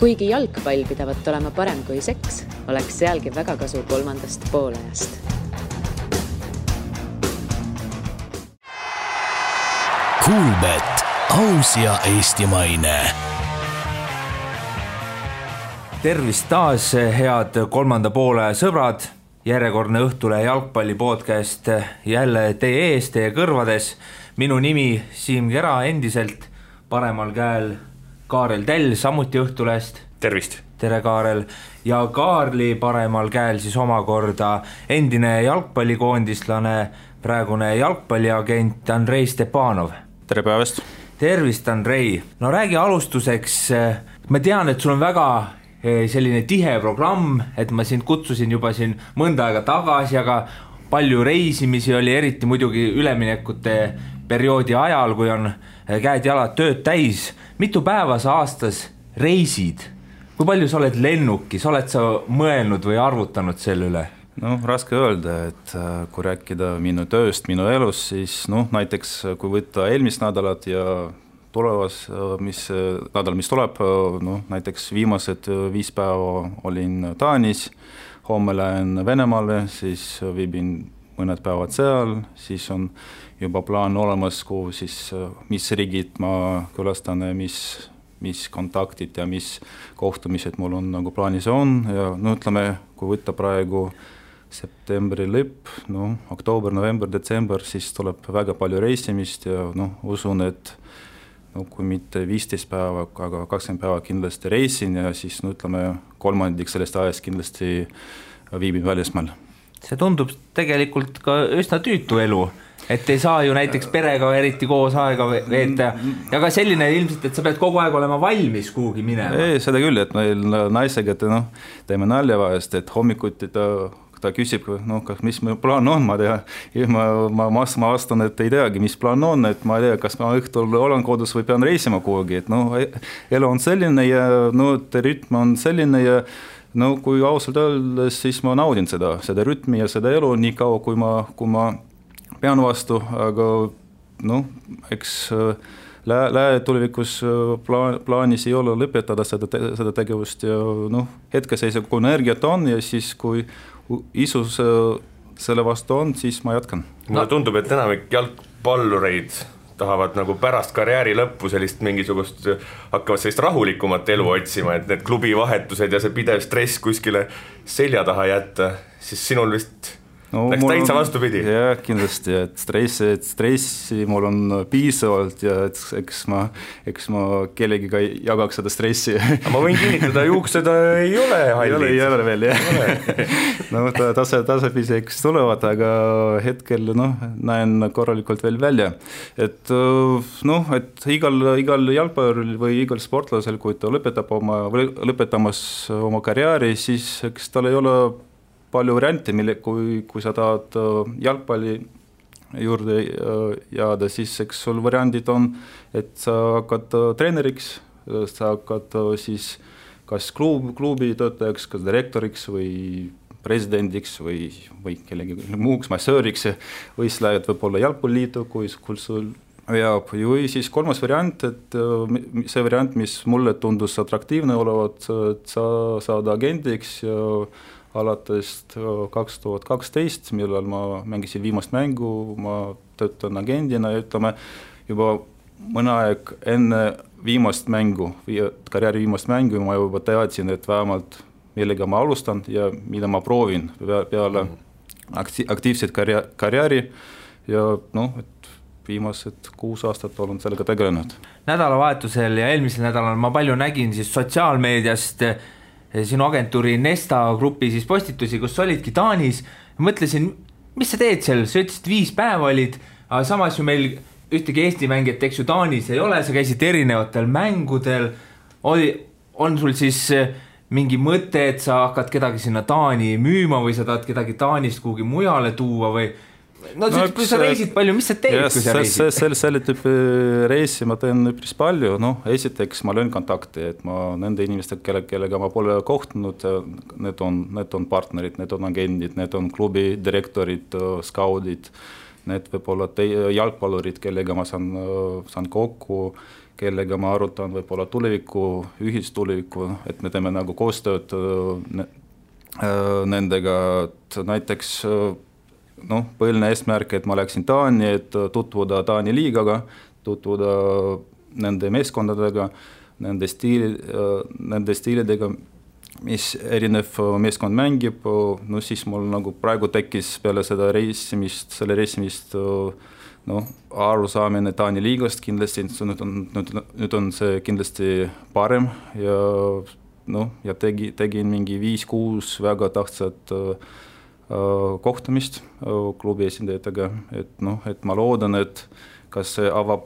Kuigi jalgpall pidavat olema parem kui seks, oleks sealgi väga kasu kolmandast poolajast. Kuulbet, aus ja eestimaine. Tervist taas, head kolmanda poole sõbrad. Järjekordne Õhtulehe jalgpalli podcast jälle teie ees, teie kõrvades. Minu nimi Siim Kera endiselt, paremal käel Kaarel Tell, samuti Õhtulehest. Tervist! Tere Kaarel! Ja Kaarli paremal käel siis omakorda endine jalgpallikoondistlane, praegune jalgpalliagent Andrei Stepanov. Tere päevast! Tervist, Andrei! No räägi alustuseks, ma tean, et sul on väga selline tihe programm, et ma sind kutsusin juba siin mõnda aega tagasi, aga palju reisimisi oli, eriti muidugi üleminekute perioodi ajal, kui on käed-jalad tööd täis. Mitu päeva sa aastas reisid? Kui palju sa oled lennukis? Oled sa mõelnud või arvutanud selle üle? No, raske öelda, et kui rääkida minu tööst, minu elus, siis näiteks kui võtta eelmist nädalat ja tulevas, mis tuleb, näiteks viimased 5 päeva olin Taanis, homme lähen Venemaale, siis viibin mõned päevad seal, siis on juba plaan olemas, mis riigid ma külastan, mis kontaktid ja mis kohtumised mul on nagu plaanis on ja ütleme, kui võtta praegu septembri lõpp, oktoober, november, detsember, siis tuleb väga palju reisimist ja usun, et kui mitte 15 päeva, aga 20 päeva kindlasti reisin ja siis ütleme, kolmandik sellest ajast kindlasti viibin välismaal. See tundub tegelikult ka üsna tüütu elu, et ei saa ju näiteks perega eriti koos aega veeta ja ka selline ilmselt, et sa pead kogu aeg olema valmis kuhugi minema. Ei, seda küll, et meil naisega teeme nalja vahest, et hommikuti ta küsib, mis meil plaan on, ma tea, ma vastan, et ei teagi, mis plaan on, et ma ei tea, kas ma õhtul olen kodus või pean reisima kuhugi, et elu on selline ja rütm on selline ja kui ausalt öeldes, siis ma naudin seda rütmi ja seda elu nii kaua, kui ma pean vastu, aga eks tulevikus plaanis ei ole lõpetada seda tegevust ja hetkeseisa, kui energiat on ja siis kui isus selle vastu on, siis ma jätkan. Mulle tundub, et enamik jalgpallureid tahavad nagu pärast karjääri lõppu hakkavad sellist rahulikumat elu otsima, et need klubivahetused ja see pidev stress kuskile selja taha jätta, siis sinul vist läks täitsa vastupidi. Jah, kindlasti, et stressi mul on piisavalt ja eks ma kellegiga jagaks seda stressi. Ma võin kinnitada, juuksed ei ole hallid. Ei ole veel, jah. Tasapisi tulevad, aga hetkel näen korralikult veel välja. Et igal jalgpalluril või igal sportlasel, kui ta lõpetamas oma karjääri, siis eks tal ei ole palju variante, kui sa tahad jalgpalli juurde jääda, siis eks sul variandid on, et sa hakkad treeneriks, sa hakkad siis kas klubi töötajaks, kas direktoriks või presidendiks või kellegi muuks massööriks või siis lähed võib-olla jalgpalliliitu, kui sul jääb. Või siis kolmas variant, et see variant, mis mulle tundus atraktiivne olevat, et sa saad agendiks ja alates 2012, millal ma mängisin viimast mängu, ma töötan agendina ja ütleme juba mõne aeg enne karjääri viimast mängu ma juba teadsin, et vähemalt millega ma alustan ja mida ma proovin peale aktiivset karjääri ja et viimased 6 aastat olen sellega tegelenud. Nädalavahetusel ja eelmisel nädalal ma palju nägin siis sotsiaalmeediast sinu agentuuri Nesta grupi siis postitusi, kus olidki Taanis. Mõtlesin, mis sa teed seal? Sa ütlesid 5 päeva olid, aga samas ju meil ühtegi Eesti mängijat, eks ju Taanis ei ole, sa käisid erinevatel mängudel. On sul siis mingi mõte, et sa hakkad kedagi sinna Taani müüma või sa tahad kedagi Taanist kuhugi mujale tuua või? Kui sa reisid palju, mis sa teed, kui sa reisid? Selle tüüpi reisi ma teen üpris palju. Esiteks ma löön kontakti, et ma nende inimestega, kellega ma pole kohtunud, need on partnerid, need on agendid, need on klubi direktorid, skaudid, need võib olla jalgpallurid, kellega ma saan kokku kellega ma arutan võib-olla tuleviku, ühistuleviku, et me teeme nagu koostööd nendega, et näiteks põhiline eesmärk, et ma läksin Taani, et tutvuda Taani liigaga, tutvuda nende meeskondadega, nende stiilidega, mis erinev meeskond mängib, siis mul nagu praegu tekkis peale selle reisimist arusaamine Taani liigast kindlasti, nüüd on see kindlasti parem ja tegin mingi 5-6 väga tähtsat kohtumist klubi esindajatega, et ma loodan, et kas see avab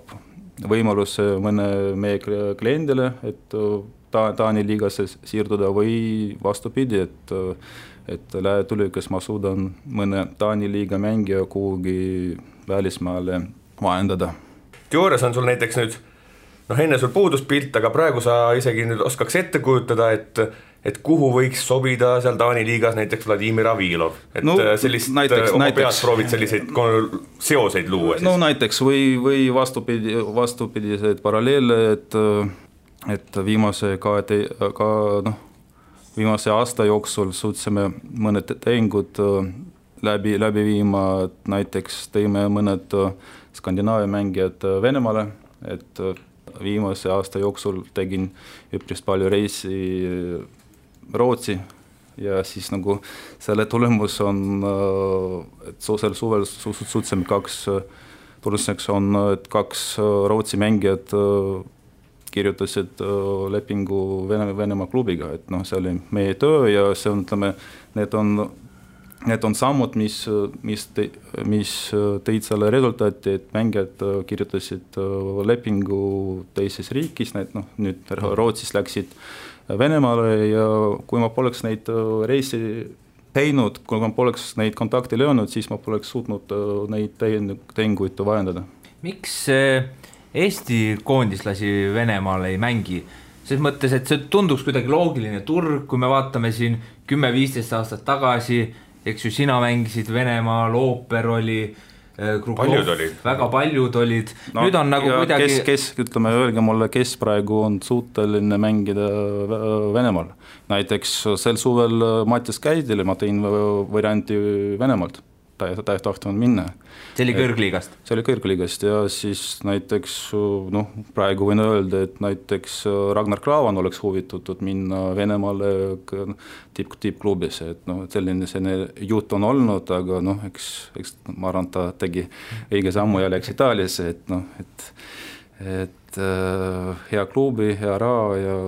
võimaluse mõne meie kliendile, et Taani liigasse siirduda või vastupidi, et tulevikus ma suudan mõne Taani liiga mängija kuhugi välismaale vahendada. Teoorias on sul näiteks nüüd, enne sul puudus pilt, aga praegu sa isegi nüüd oskaks ette kujutada, et kuhu võiks sobida seal Taani liigas näiteks Vladimir Avilov, et sellist oma peas proovid selliseid seoseid luua siis. Näiteks või vastupidiseid paralleele, et viimase aasta jooksul suutsime mõned tehingud läbi viima, et näiteks tõime mõned Skandinaavia mängijad Venemaale, et viimase aasta jooksul tegin üpris palju reisi Rootsi ja siis nagu selle tulemus on, et sel suvel suutsime tuluseks on, et 2 Rootsi mängijad kirjutasid lepingu Venemaa klubiga, et see oli meie töö ja see on, need on sammud, mis tõid selle resultaati, et mängijad kirjutasid lepingu teises riigis, nüüd Rootsis läksid Venemaale ja kui ma poleks neid reisi teinud, kui ma poleks neid kontakte löönud, siis ma poleks suutnud neid tehinguid vahendada. Miks Eesti koondislasi Venemaal ei mängi? Selles mõttes, et see tunduks kuidagi loogiline turg, kui me vaatame siin 10-15 aastat tagasi, eks ju, sina mängisid Venemaal, Ooper oli, Krugov, väga paljud olid. Nüüd on nagu kuidagi... Ütleme, öelge mulle, kes praegu on suuteline mängida Venemaal. Näiteks sel suvel Mattias Käidile ma tõin varianti Venemaalt. Ta ei tahtnud minna. See oli kõrgliigast? See oli kõrgliigast ja siis näiteks, praegu võin öelda, et näiteks Ragnar Klavan oleks huvitatud minna Venemaale tippklubis, et selline jutt on olnud, aga eks ma arvan, ta tegi õige sammu ja läks Itaaliasse, et hea klubi, hea raha ja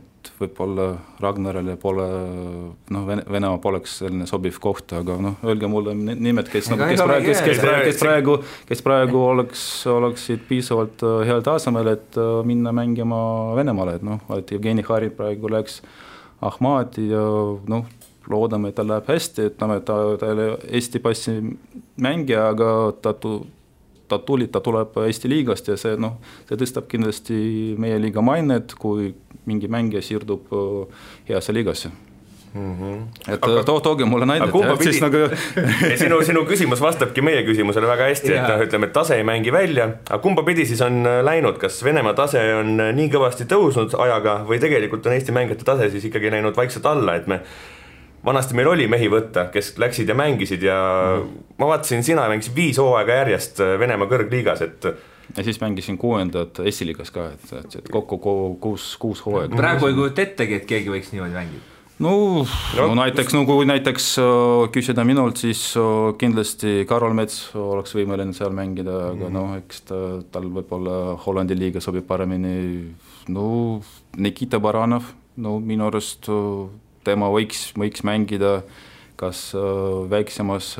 et võib-olla Ragnarale pole, Venemaa poleks selline sobiv koht, aga öelge mulle nimed, kes praegu oleksid piisavalt heal tasemel, et minna mängima Venemaale, et Jevgeni Harin praegu läks Ahmadi ja loodame, et ta läheb hästi, et ta oli Eesti passi mängija, aga ta tuleb Eesti liigast ja see tõstab kindlasti meie liiga mainet, kui mingi mängija siirdub heasse liigasse. Et tooge mulle näidet. Sinu küsimus vastabki meie küsimusele väga hästi, et ütleme, et tase ei mängi välja, aga kumba pidi siis on läinud, kas Venemaa tase on nii kõvasti tõusnud ajaga või tegelikult on Eesti mängijate tase siis ikkagi läinud vaikselt alla, et vanasti meil oli mehi võtta, kes läksid ja mängisid ja ma vaatasin, sina mängisid 5 hooaega järjest Venemaa kõrgliigas, et ja siis mängisin 6. esiliigas ka, et kokku 6 hooaega. Praegu ei kujuta ettegi, et keegi võiks niimoodi mängida? Kui näiteks küsida minult, siis kindlasti Karol Mets oleks võimeline seal mängida, aga eks tal võib-olla Hollandi liiga sobib paremini. Nikita Baranov, minu arust tema võiks mängida kas väiksemas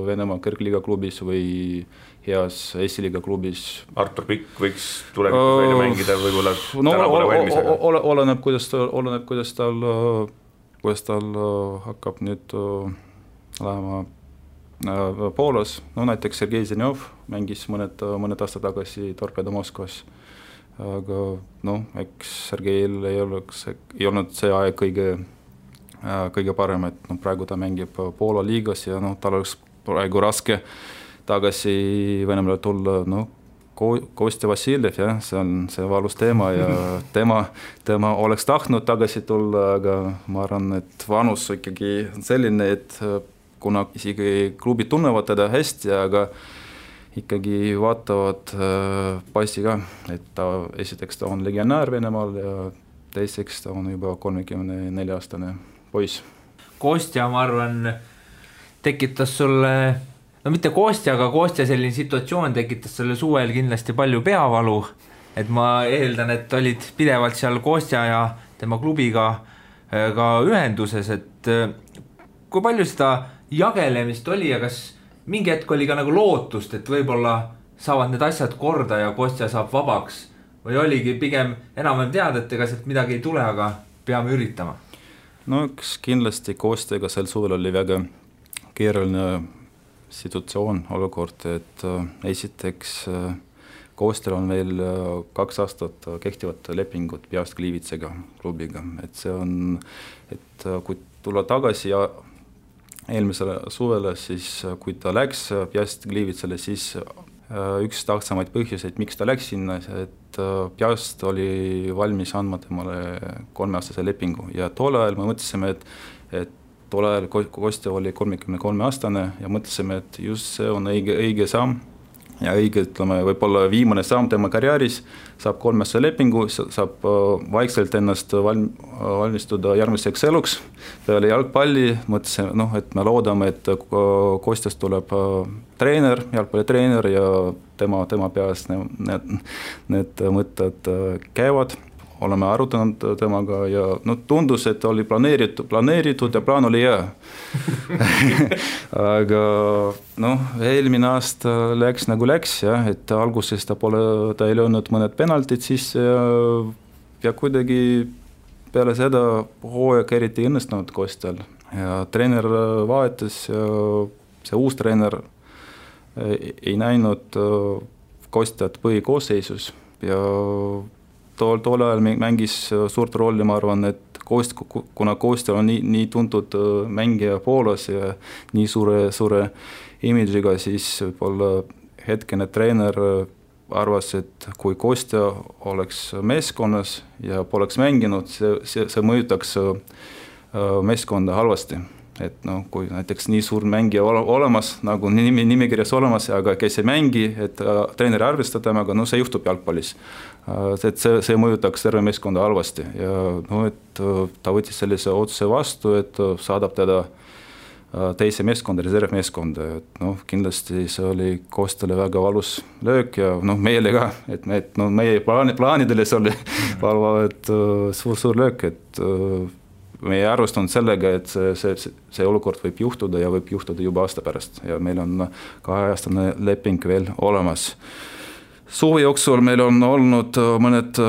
Venemaa kõrgliiga klubis või heas esiliiga klubis. Artur Pikk võiks tulevikus välja mängida, võib-olla täna pole valmis, aga... Oleneb, kuidas tal hakkab nüüd lähema Poolas. Näiteks Sergei Zenjov mängis mõned aastad tagasi Torpedo Moskvas. Aga eks Sergeil ei olnud see aeg kõige parem, et praegu ta mängib Poola liigas ja tal oleks praegu raske tagasi Venemaale tulla, Kostja Vassiljev, jah, see on see valus teema ja tema oleks tahtnud tagasi tulla, aga ma arvan, et vanus ikkagi on selline, et kuna isegi klubid tunnevad teda hästi, aga ikkagi vaatavad passi ka, et esiteks ta on legionäär Venemaal ja teiseks ta on juba 34-aastane poiss. Kostja, ma arvan, tekitas sulle... No mitte Kostja, aga Kostja selline situatsioon tekitas selle suvel kindlasti palju peavalu, et ma eeldan, et olid pidevalt seal Kostja ja tema klubiga ka ühenduses, et kui palju seda jagelemist oli ja kas mingi hetk oli ka nagu lootust, et võib-olla saavad need asjad korda ja Kostja saab vabaks või oligi pigem enam-vähem teada, et ega sealt midagi ei tule, aga peame üritama? No üks kindlasti Kostjaga sel suvel oli väga keeruline situatsioon, olukord, et esiteks Kostjal on veel 2 aastat kehtivat lepingut Piast Gliwicega klubiga, et see on, et kui tulla tagasi ja eelmisele suvele, siis kui ta läks Piast Gliwicele, siis üks tähtsamaid põhjuseid, miks ta läks sinna, et Piast oli valmis andma temale 3-aastase lepingu ja tol ajal me mõtlesime, et tol ajal Kostja oli 33-aastane ja mõtlesime, et just see on õige samm ja õige, ütleme, võib-olla viimane samm tema karjääris, saab 3-aastase lepingu, saab vaikselt ennast valmistuda järgmiseks eluks peale jalgpalli, mõtlesime, et me loodame, et Kostjast tuleb treener, jalgpallitreener ja tema peas need mõtted käivad. Oleme arutanud temaga ja tundus, et oli planeeritud ja plaan oli hea. Aga eelmine aasta läks nagu läks, jah, et alguses ta ei löönud mõned penaltid sisse ja kuidagi peale seda hooaeg eriti õnnestunud Kostjal ja treener vahetas ja see uus treener ei näinud Kostjat põhikoosseisus ja tol ajal mängis suurt rolli, ma arvan, et kuna Kostja on nii tuntud mängija Poolas ja nii suure imidžiga, siis võib-olla hetkene treener arvas, et kui Kostja oleks meeskonnas ja poleks mänginud, see mõjutaks meeskonda halvasti. Et kui näiteks nii suur mängija olemas, nagu nimekirjas olemas, aga kes ei mängi, et treeneri arvestab temaga, see juhtub jalgpallis. Et see mõjutaks terve meeskonda halvasti ja et ta võttis sellise otsuse vastu, et saadab teda teise meeskonda, reservmeeskonda. Et kindlasti see oli Kostjale väga valus löök ja meile ka, et meie plaanidele see oli et suur löök, et meie arvestanud sellega, et see olukord võib juhtuda ja võib juhtuda juba aasta pärast ja meil on 2-aastane leping veel olemas. Suve jooksul meil on olnud mõned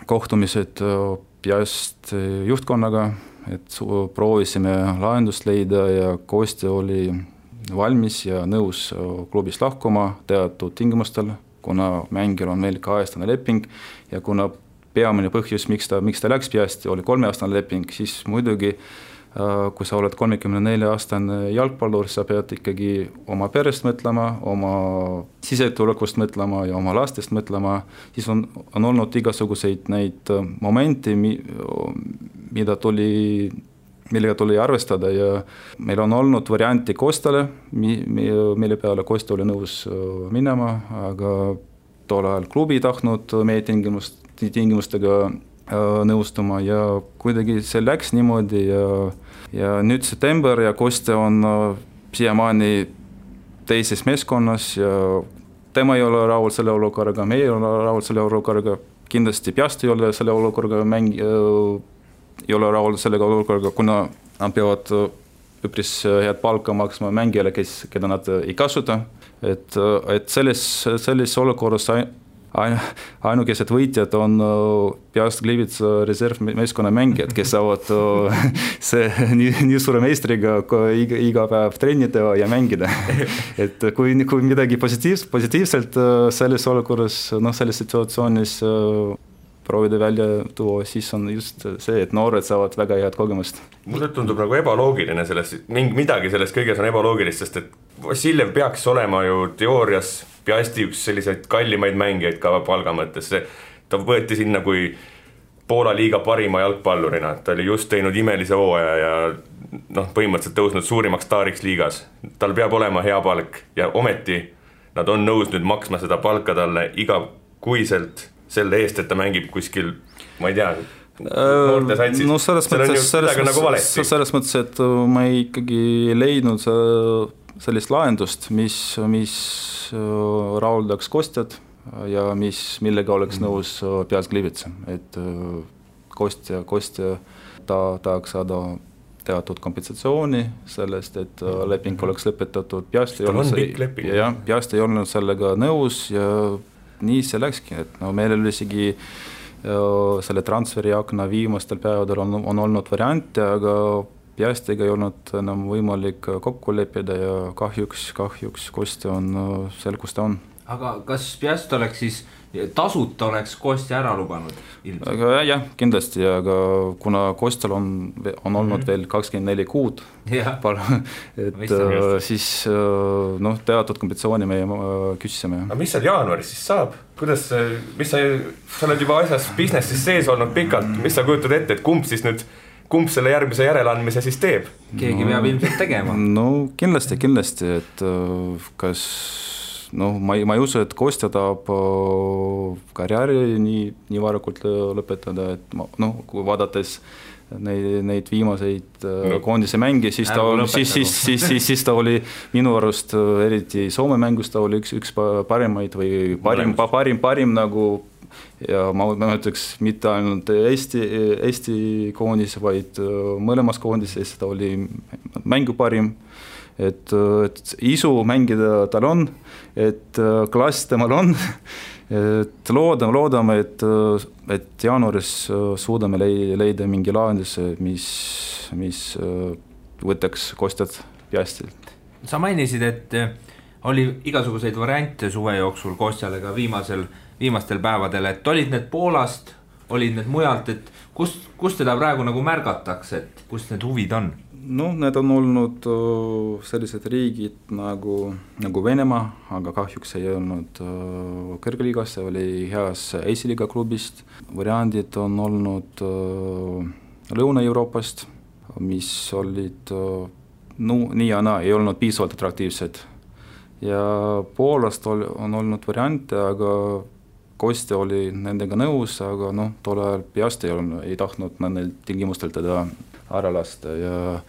kohtumised Piast juhtkonnaga, et proovisime lahendust leida ja Kostja oli valmis ja nõus klubist lahkuma teatud tingimustel, kuna mängijal on veel 2-aastane leping ja kuna peamine põhjus, miks ta läks Piasti, oli 3-aastane leping, siis muidugi, kui sa oled 34-aastane jalgpallur, sa pead ikkagi oma perest mõtlema, oma sisetulekust mõtlema ja oma lastest mõtlema, siis on olnud igasuguseid neid momente, millega tuli arvestada ja meil on olnud varianti Kostjale, mille peale Kostja oli nõus minema, aga tol ajal klubi tahtnud meie tingimustega nõustuma ja kuidagi see läks niimoodi ja nüüd september ja Kostja on siiamaani teises meeskonnas ja tema ei ole rahul selle olukorraga, me ei ole rahul selle olukorraga, kindlasti Piast ei ole selle olukorraga ei ole rahul sellega olukorraga, kuna nad peavad üpris head palka maksma mängijale, keda nad ei kasuta, et selles olukorras ainukesed võitjad on Piast Gliwice reservmeeskonna mängijad, kes saavad nii suure meistriga iga päev trennida ja mängida. Et kui midagi positiivselt selles olukorras, selles situatsioonis proovida välja tuua, siis on just see, et noored saavad väga head kogemust. Mulle tundub nagu ebaloogiline midagi sellest kõiges on ebaloogilist, sest et Vassiljev peaks olema ju teoorias Piasti üks selliseid kallimaid mängijaid ka palga mõttes, ta võeti sinna kui Poola liiga parima jalgpallurina, ta oli just teinud imelise hooaja ja põhimõtteliselt tõusnud suurimaks staariks liigas. Tal peab olema hea palk ja ometi nad on nõus nüüd maksma seda palka talle igakuiselt selle eest, et ta mängib kuskil, ma ei tea, noorte satsis. No selles mõttes, et ma ikkagi ei leidnud sellist lahendust, mis rahuldaks Kostjat ja millega oleks nõus Piast Gliwice, et Kostja tahaks saada teatud kompensatsiooni sellest, et leping oleks lõpetatud. Piast ei olnud sellega nõus ja nii see läkski, et meil oli isegi selle transferi akna viimastel päevadel on olnud variante, aga Piastiga ei olnud enam võimalik kokku leppida ja kahjuks Kostja on seal, kus ta on. Aga kas Piast oleks siis, tasuta oleks Kostja ära lubanud? Aga jah, kindlasti, aga kuna Kostjal on olnud veel 24 kuud, et siis teatud kompensatsiooni me küsisime. Aga mis seal jaanuaris siis saab? Kuidas, sa oled juba asjas businessis sees olnud pikalt, mis sa kujutad ette, et kumb selle järgmise järeleandmise siis teeb? Keegi peab ilmselt tegema. No kindlasti, et kas ma ei usu, et Kostja tahab karjääri nii varakult lõpetada, et kui vaadates neid viimaseid koondise mänge, siis ta oli minu arust, eriti Soome mängus, ta oli üks parimaid või parim nagu, ja ma ütleks mitte ainult Eesti koondis, vaid mõlemas koondises ta oli mängu parim. Et isu mängida tal on, et klass temal on, et loodame, et jaanuaris suudame leida mingi lahenduse, mis võtaks Kostjat Piastilt. Sa mainisid, et oli igasuguseid variante suve jooksul Kostjale ka viimastel päevadel, et olid need Poolast, olid need mujalt, et kust teda praegu nagu märgatakse, et kust need huvid on? Need on olnud sellised riigid nagu Venemaa, aga kahjuks ei olnud kõrgliigas, see oli heas esiliiga klubist. Variandid on olnud Lõuna-Euroopast, mis olid nii ja naa, ei olnud piisavalt atraktiivsed. Ja Poolast on olnud variante, aga Kostja oli nendega nõus, aga tol ajal Piast ei tahtnud nendel tingimustel teda ära lasta ja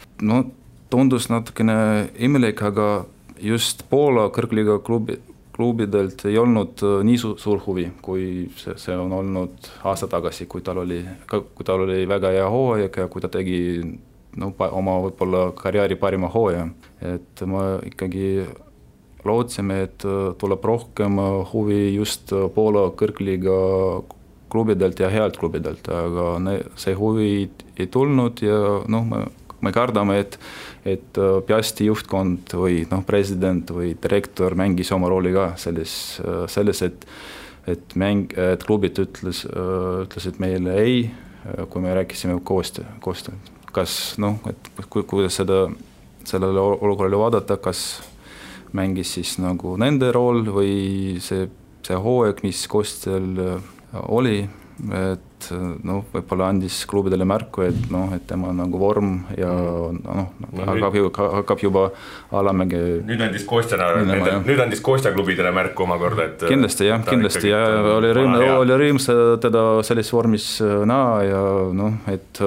tundus natukene imelik, aga just Poola kõrgliiga klubidelt ei olnud nii suur huvi, kui see on olnud aasta tagasi, kui tal oli väga hea hooaeg ja kui ta tegi oma võib-olla karjääri parima hooaja. Et ma ikkagi lootsime, et tuleb rohkem huvi just Poola kõrgliiga klubidelt ja healt klubidelt, aga see huvi ei tulnud ja me kardame, et Piasti juhtkond või president või direktor mängis oma rooli ka selles, et klubid ütlesid meile ei, kui me rääkisime koostöö. Kas, kuidas sellele olukorrale vaadata, kas mängis siis nende rool või see hooaeg, mis Kostjal oli, et võib-olla andis klubidele märku, et tema vorm ja hakkab juba alamäge. Nüüd andis Kostja klubidele märku omakorda, et kindlasti ja oli rõõm teda selles vormis näha ja et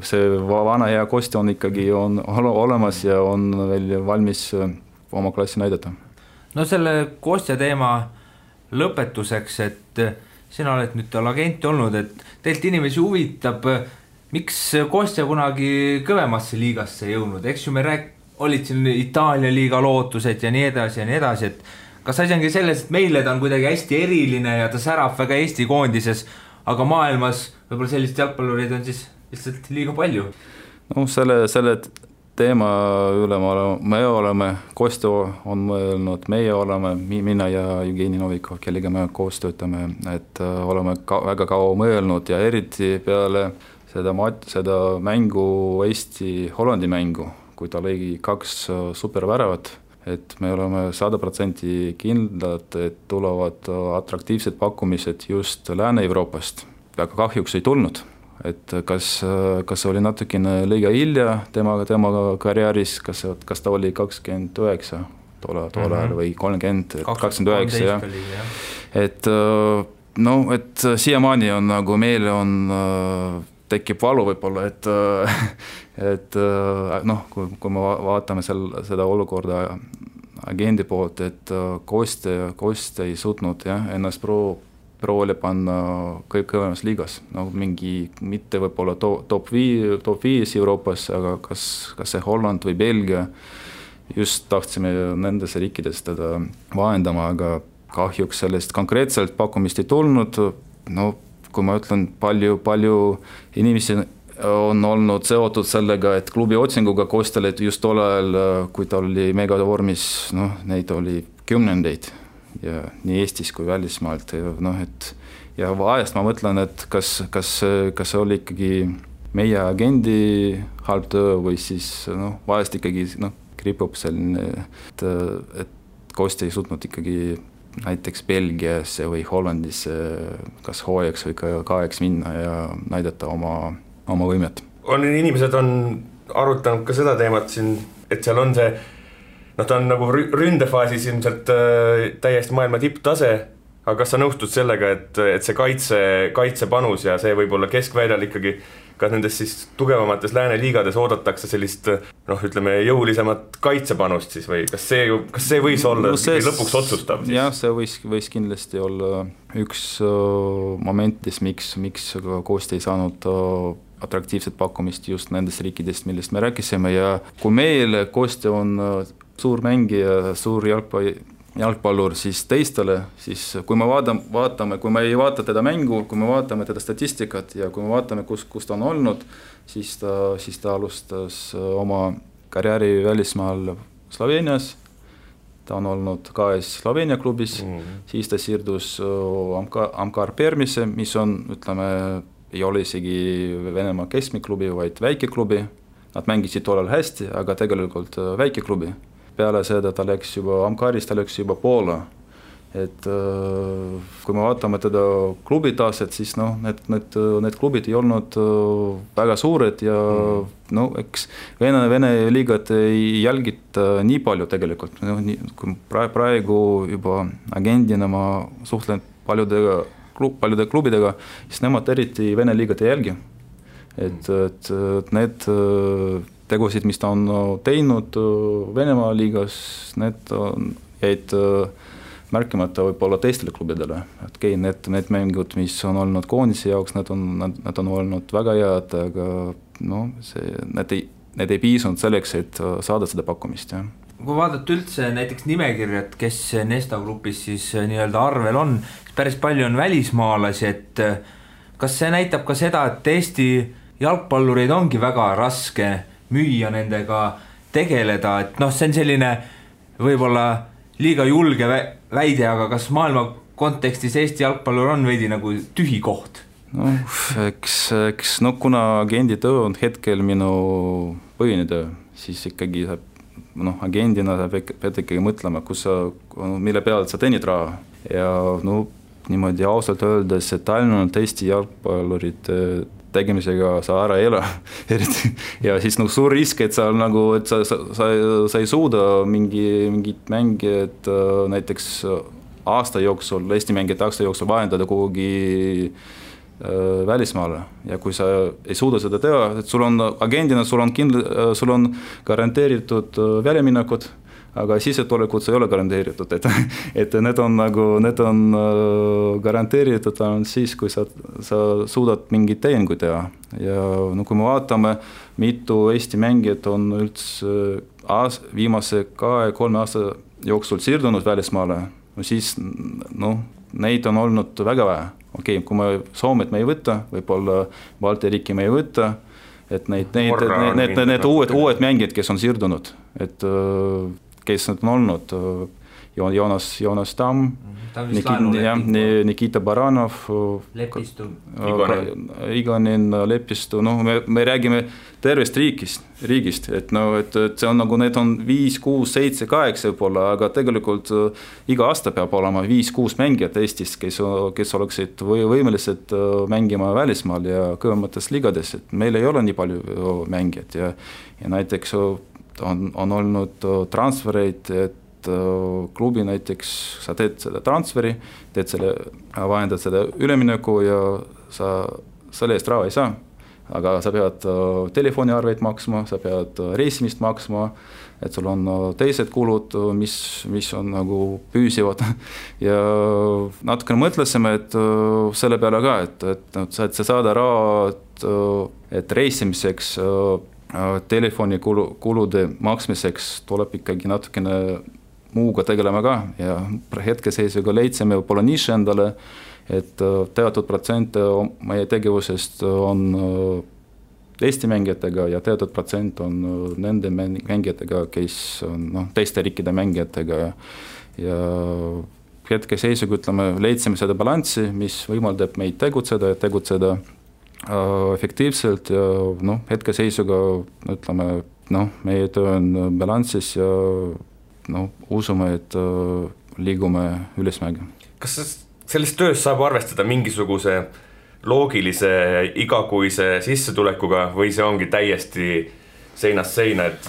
see vana hea Kostja on ikkagi olemas ja on veel valmis oma klassi näidata. Selle Kostja teema lõpetuseks, et sina oled nüüd tal agenti olnud, et teilt inimesi huvitab, miks Kostja kunagi kõvemasse liigasse jõudnud, eks ju me olid siin Itaalia liiga lootused ja nii edasi, et kas asi ongi selles, et meile ta on kuidagi hästi eriline ja ta särab väga Eesti koondises, aga maailmas võib-olla sellist jalgpallureid on siis lihtsalt liiga palju? Selle teema üle me oleme, Kostja on mõelnud, meie oleme, mina ja Jevgeni Novikov, kellega me koos töötame, et oleme väga kaua mõelnud ja eriti peale seda mängu Eesti-Hollandi mängu, kui ta lõi 2 superväravat, et me oleme 100% kindlad, et tulevad atraktiivsed pakkumised just Lääne-Euroopast. Aga kahjuks ei tulnud, et kas oli natukene liiga hilja tema karjääris, kas ta oli 29 tollal või 30, 29, jah. Et et siiamaani on nagu meil on tekib valu võib-olla, et kui me vaatame seda olukorda agendi poolt, et Koste ei suutnud ennast proovile panna kõvemas liigas, mingi mitte võib-olla top 5 Euroopas, aga kas see Holland või Belgia, just tahtsime nendes riikides teda vahendama, aga kahjuks sellest konkreetselt pakkumist ei tulnud. Kui ma ütlen, palju inimesi on olnud seotud sellega, et klubi otsinguga Kostele just tollal, kui ta oli megavormis, neid oli kümnendeid ja nii Eestis kui välismaalt. Ja vahest ma mõtlen, et kas see oli ikkagi meie agendi halb töö või siis vahest ikkagi kripub selline, et Koste ei suutnud ikkagi näiteks Belgiasse või Hollandisse kas hooajaks või kaeks minna ja näidata oma võimet. Inimesed on arutanud ka seda teemat siin, et seal on see, ta on nagu ründefaasis ilmselt täiesti maailma tipptase, aga kas sa nõustud sellega, et see kaitsepanus ja see võib-olla keskväljal ikkagi ka nendes siis tugevamates lääne liigades oodatakse sellist, ütleme, jõulisemat kaitsepanust siis või kas see võis olla lõpuks otsustav? Jah, see võis kindlasti olla üks momentis, miks Koste ei saanud atraktiivset pakkumist just nendest riikidest, millest me rääkisime ja kui meil Koste on suur mängija, suur jalgpallur, siis teistele, siis kui me vaatame, kui me ei vaata teda mängu, kui me vaatame teda statistikat ja kui me vaatame, kus ta on olnud, siis ta alustas oma karjääri välismaal Sloveenias, ta on olnud KS Sloveenia klubis, siis ta siirdus Amkar Permise, mis on, ütleme, ei ole isegi Venemaa keskmiklubi, vaid väikeklubi, nad mängisid tollal hästi, aga tegelikult väikeklubi. Peale seda ta läks juba Amkarist, ta läks juba Poola. Et kui me vaatame teda klubi taset, siis need klubid ei olnud väga suured ja eks Vene liigat ei jälgita nii palju tegelikult. Kui praegu juba agendina ma suhtlen paljude klubidega, siis nemad eriti Vene liigat ei jälgi. Et need tegusid, mis ta on teinud Venemaa liigas, need jäid märkimata võib-olla teistele klubidele. Okei, need mängud, mis on olnud koondise jaoks, need on olnud väga head, aga need ei piisunud selleks, et saada seda pakkumist. Ja. Kui vaadata üldse näiteks nimekirjad, kes Nesta grupis siis nii-öelda arvel on, siis päris palju on välismaalasi, et kas see näitab ka seda, et Eesti jalgpallureid ongi väga raske müüa nendega tegeleda, et see on selline võib-olla liiga julge väide, aga kas maailma kontekstis Eesti jalgpallur on veidi nagu tühi koht? Eks kuna agendi töö on hetkel minu põhine töö, siis ikkagi agendina sa pead ikkagi mõtlema, mille peale sa teenid raha ja niimoodi ausalt öeldes, et ainult Eesti jalgpallurid tegemisega sa ära ei ela eriti. Ja siis suur risk, et sa ei suuda mingit mängijat näiteks aasta jooksul, Eesti mängijat aasta jooksul vahendada kuhugi välismaale. Ja kui sa ei suuda seda teha, et sul on agendina, sul on garanteeritud väljaminekud, aga sissetulekud ei ole garanteeritud, et need on garanteeritud siis, kui sa suudad mingit tehinguid teha. Ja kui me vaatame, mitu Eesti mängijat on üldse viimase 2-3 aasta jooksul siirdunud välismaale, siis neid on olnud väga vähe. Okei, kui me Soomet me ei võta, võib-olla Balti riiki me ei võta, et need uued mängijad, kes on siirdunud, et kes need on olnud Joonas Tamm, Nikita Baranov, Lepistu, Igonin, Lepistu, me räägime tervest riigist, et see on nagu need on 5, 6, 7, 8 võib-olla, aga tegelikult iga aasta peab olema 5-6 mängijat Eestis, kes oleksid võimelised mängima välismaal ja kõvemates ligades, et meil ei ole nii palju mängijad ja näiteks on olnud transfereid, et klubi näiteks, sa teed selle transferi, vahendad selle ülemineku ja sa selle eest raha ei saa, aga sa pead telefoniarveid maksma, sa pead reisimist maksma, et sul on teised kulud, mis on nagu püüsivad ja natukene mõtlesime, et selle peale ka, et sa saada raha, et reisimiseks telefonikulude maksmiseks tuleb ikkagi natukene muuga tegelema ka ja hetkeseisuga leidsime võib-olla niši endale, et teatud protsent meie tegevusest on Eesti mängijatega ja teatud protsent on nende mängijatega, kes on teiste riikide mängijatega ja hetkeseisuga leidsime seda balanssi, mis võimaldab meid tegutseda efektiivselt ja hetkeseisuga meie töö on balanssis ja usume, et liigume ülesmäge. Kas selles töös saab arvestada mingisuguse loogilise igakuise sissetulekuga või see ongi täiesti seinast seina, et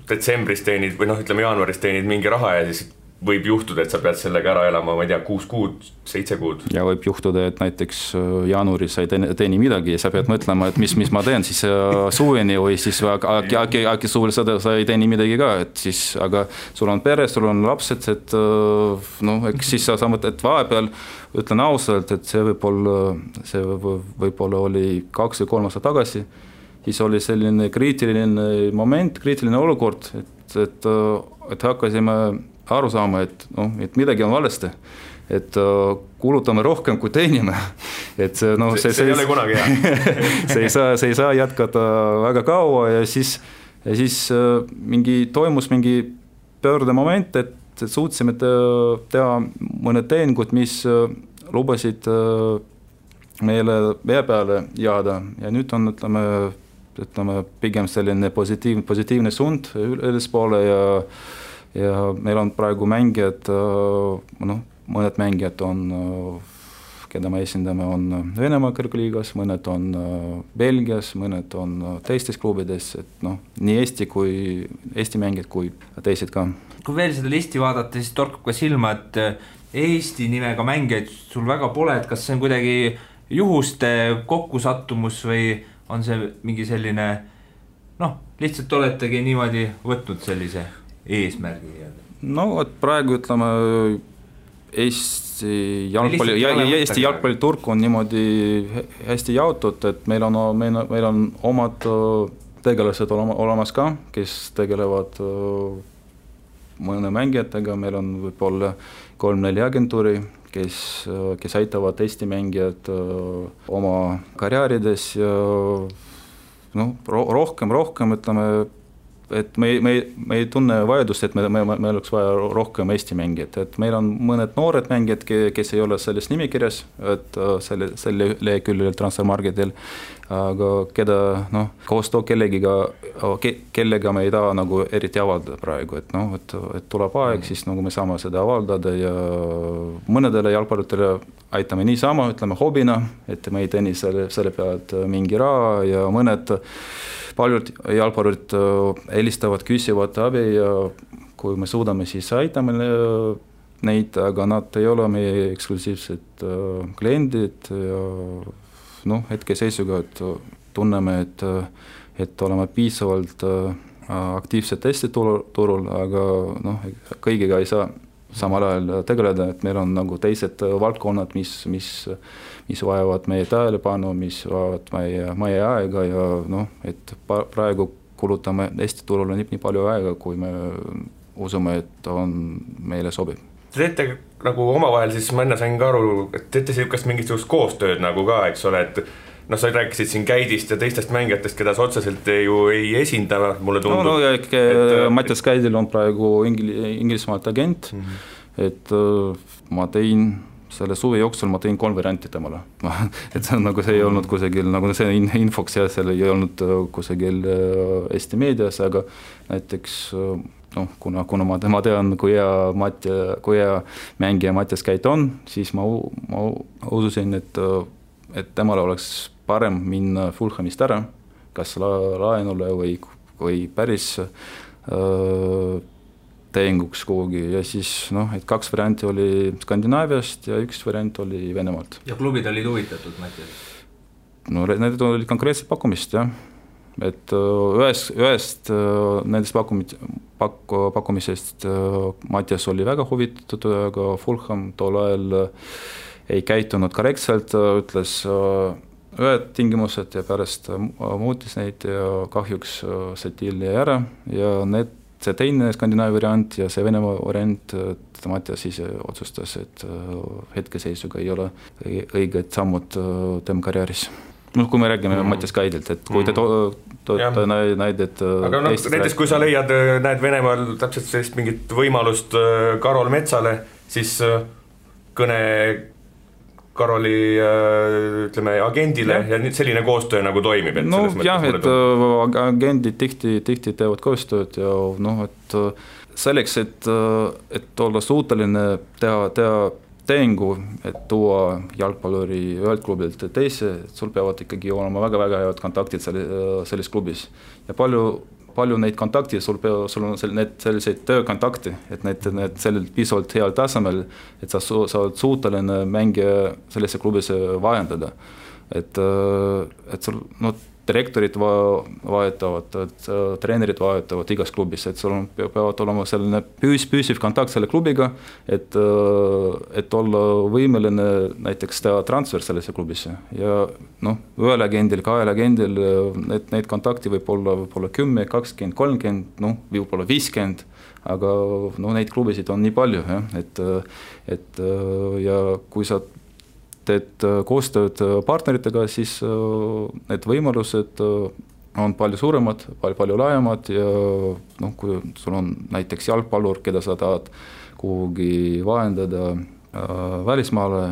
detsembris teenid või jaanuaris teenid mingi raha ja siis võib juhtuda, et sa pead sellega ära elama, ma ei tea, 6 kuud, 7 kuud. Ja võib juhtuda, et näiteks jaanuaris sa ei teeni midagi ja sa pead mõtlema, et mis ma teen siis suveni või siis äkki suvel sa ei teeni midagi ka, et siis, aga sul on pere, sul on lapsed, et eks siis sa mõtled, et vahepeal ütlen ausalt, et see võib-olla oli 2 või 3 aastat tagasi, siis oli selline kriitiline moment, kriitiline olukord, et hakkasime aru saama, et midagi on valesti, et kulutame rohkem kui teenime, et see ei ole kunagi hea. see ei saa jätkata väga kaua ja siis toimus mingi pöördemoment, et suutsime teha mõned teeningud, mis lubasid meile vee peale jääda ja nüüd on, ütleme pigem selline positiivne suund ülespoole ja meil on praegu mängijad, mõned mängijad on, keda me esindame, on Venemaa kõrgliigas, mõned on Belgias, mõned on teistes klubides, et nii Eesti mängijad kui teised ka. Kui veel seda listi vaadata, siis torkab ka silma, et Eesti nimega mängijaid sul väga pole, et kas see on kuidagi juhuste kokkusattumus või on see mingi selline, lihtsalt oletegi niimoodi võtnud sellise eesmärgi? Et praegu ütleme Eesti jalgpalliturg on niimoodi hästi jaotud, et meil on omad tegelased olemas ka, kes tegelevad mõne mängijatega, meil on võib-olla 3-4 agentuuri, kes aitavad Eesti mängijad oma karjäärides ja rohkem ütleme, et me ei tunne vajadust, et me oleks vaja rohkem Eesti mängijad, et meil on mõned noored mängijad, kes ei ole selles nimekirjas, et selle leheküljel transfermarketil, aga keda koostöö kellega me ei taha nagu eriti avaldada praegu, et tuleb aeg, siis nagu me saame seda avaldada ja mõnedele jalgpallitele aitame niisama, ütleme hobina, et me ei teeni selle pealt mingi raha ja paljud jalgpallurid helistavad, küsivad abi ja kui me suudame, siis aitame neid, aga nad ei ole meie eksklusiivsed kliendid ja hetkeseisuga, et tunneme, et oleme piisavalt aktiivsed Eesti turul, aga kõigiga ei saa samal ajal tegeleda, et meil on nagu teised valdkonnad, mis vajavad meie tähelepanu, mis vajavad meie aega ja et praegu kulutame Eesti turule nii palju aega, kui me usume, et on meile sobib. Te teete nagu omavahel, siis ma enne sain ka aru, et teete siukest mingisugust koostööd nagu ka, eks ole, et sa rääkisid siin Käidist ja teistest mängijatest, keda sa otseselt ju ei esinda, mulle tundub. Mattias Käidil on praegu Inglismaalt agent et ma tein selle suve jooksul ma tein 3 varianti temale. Et see on nagu see ei olnud kusagil, nagu see infoks ja seal ei olnud kusagil Eesti meedias, aga näiteks kuna ma tean, kui hea mängija Mattias Käit on, siis ma ususin, et temale oleks parem minna Fulhamist ära, kas laenule või päris tehinguks kuhugi ja siis et 2 varianti oli Skandinaaviast ja 1 variant oli Venemaalt. Ja klubid olid huvitatud, Mattias? Need olid konkreetselt pakkumist, jah. Et ühest nendest pakkumisest Mattias oli väga huvitatud, aga Fulham tol ajal ei käitunud korrektselt, ütles ühed tingimused ja pärast muutis neid ja kahjuks see deal jäi ära ja see teine Skandinaavia variant ja see Venemaa variant, Mattias ise otsustas, et hetkeseisuga ei ole õiged sammud tema karjääris. Kui me räägime Mattias Käidilt, et kui te näided aga näiteks kui sa näed Venemaal täpselt sellist mingit võimalust Karol Metsale, siis kõne Karoli ütleme agendile ja nüüd selline koostöö nagu toimib. Et agendid tihti teevad koostööd ja et selleks, et olla suuteline teha tehingu, et tuua jalgpalluri ühelt klubilt teise, sul peavad ikkagi olema väga-väga head kontaktid selles klubis ja palju neid kontakte, sul on selliseid töökontakte, et need sellel pisalt heal tasemel, et sa oled suuteline mängija sellesse klubisse vahendada. Et sul direktorid vahetavad, treenerid vahetavad igas klubis, et sul peavad olema selline püsiv kontakt selle klubiga, et olla võimeline näiteks teha transfer sellesse klubisse ja ühel agendil, 2 agendil neid kontakti võib olla 10, 20, 30, võib-olla 50, aga neid klubisid on nii palju, et ja kui sa teed koostööd partneritega, siis need võimalused on palju suuremad, palju laiemad ja kui sul on näiteks jalgpallur, keda sa tahad kuhugi vahendada välismaale,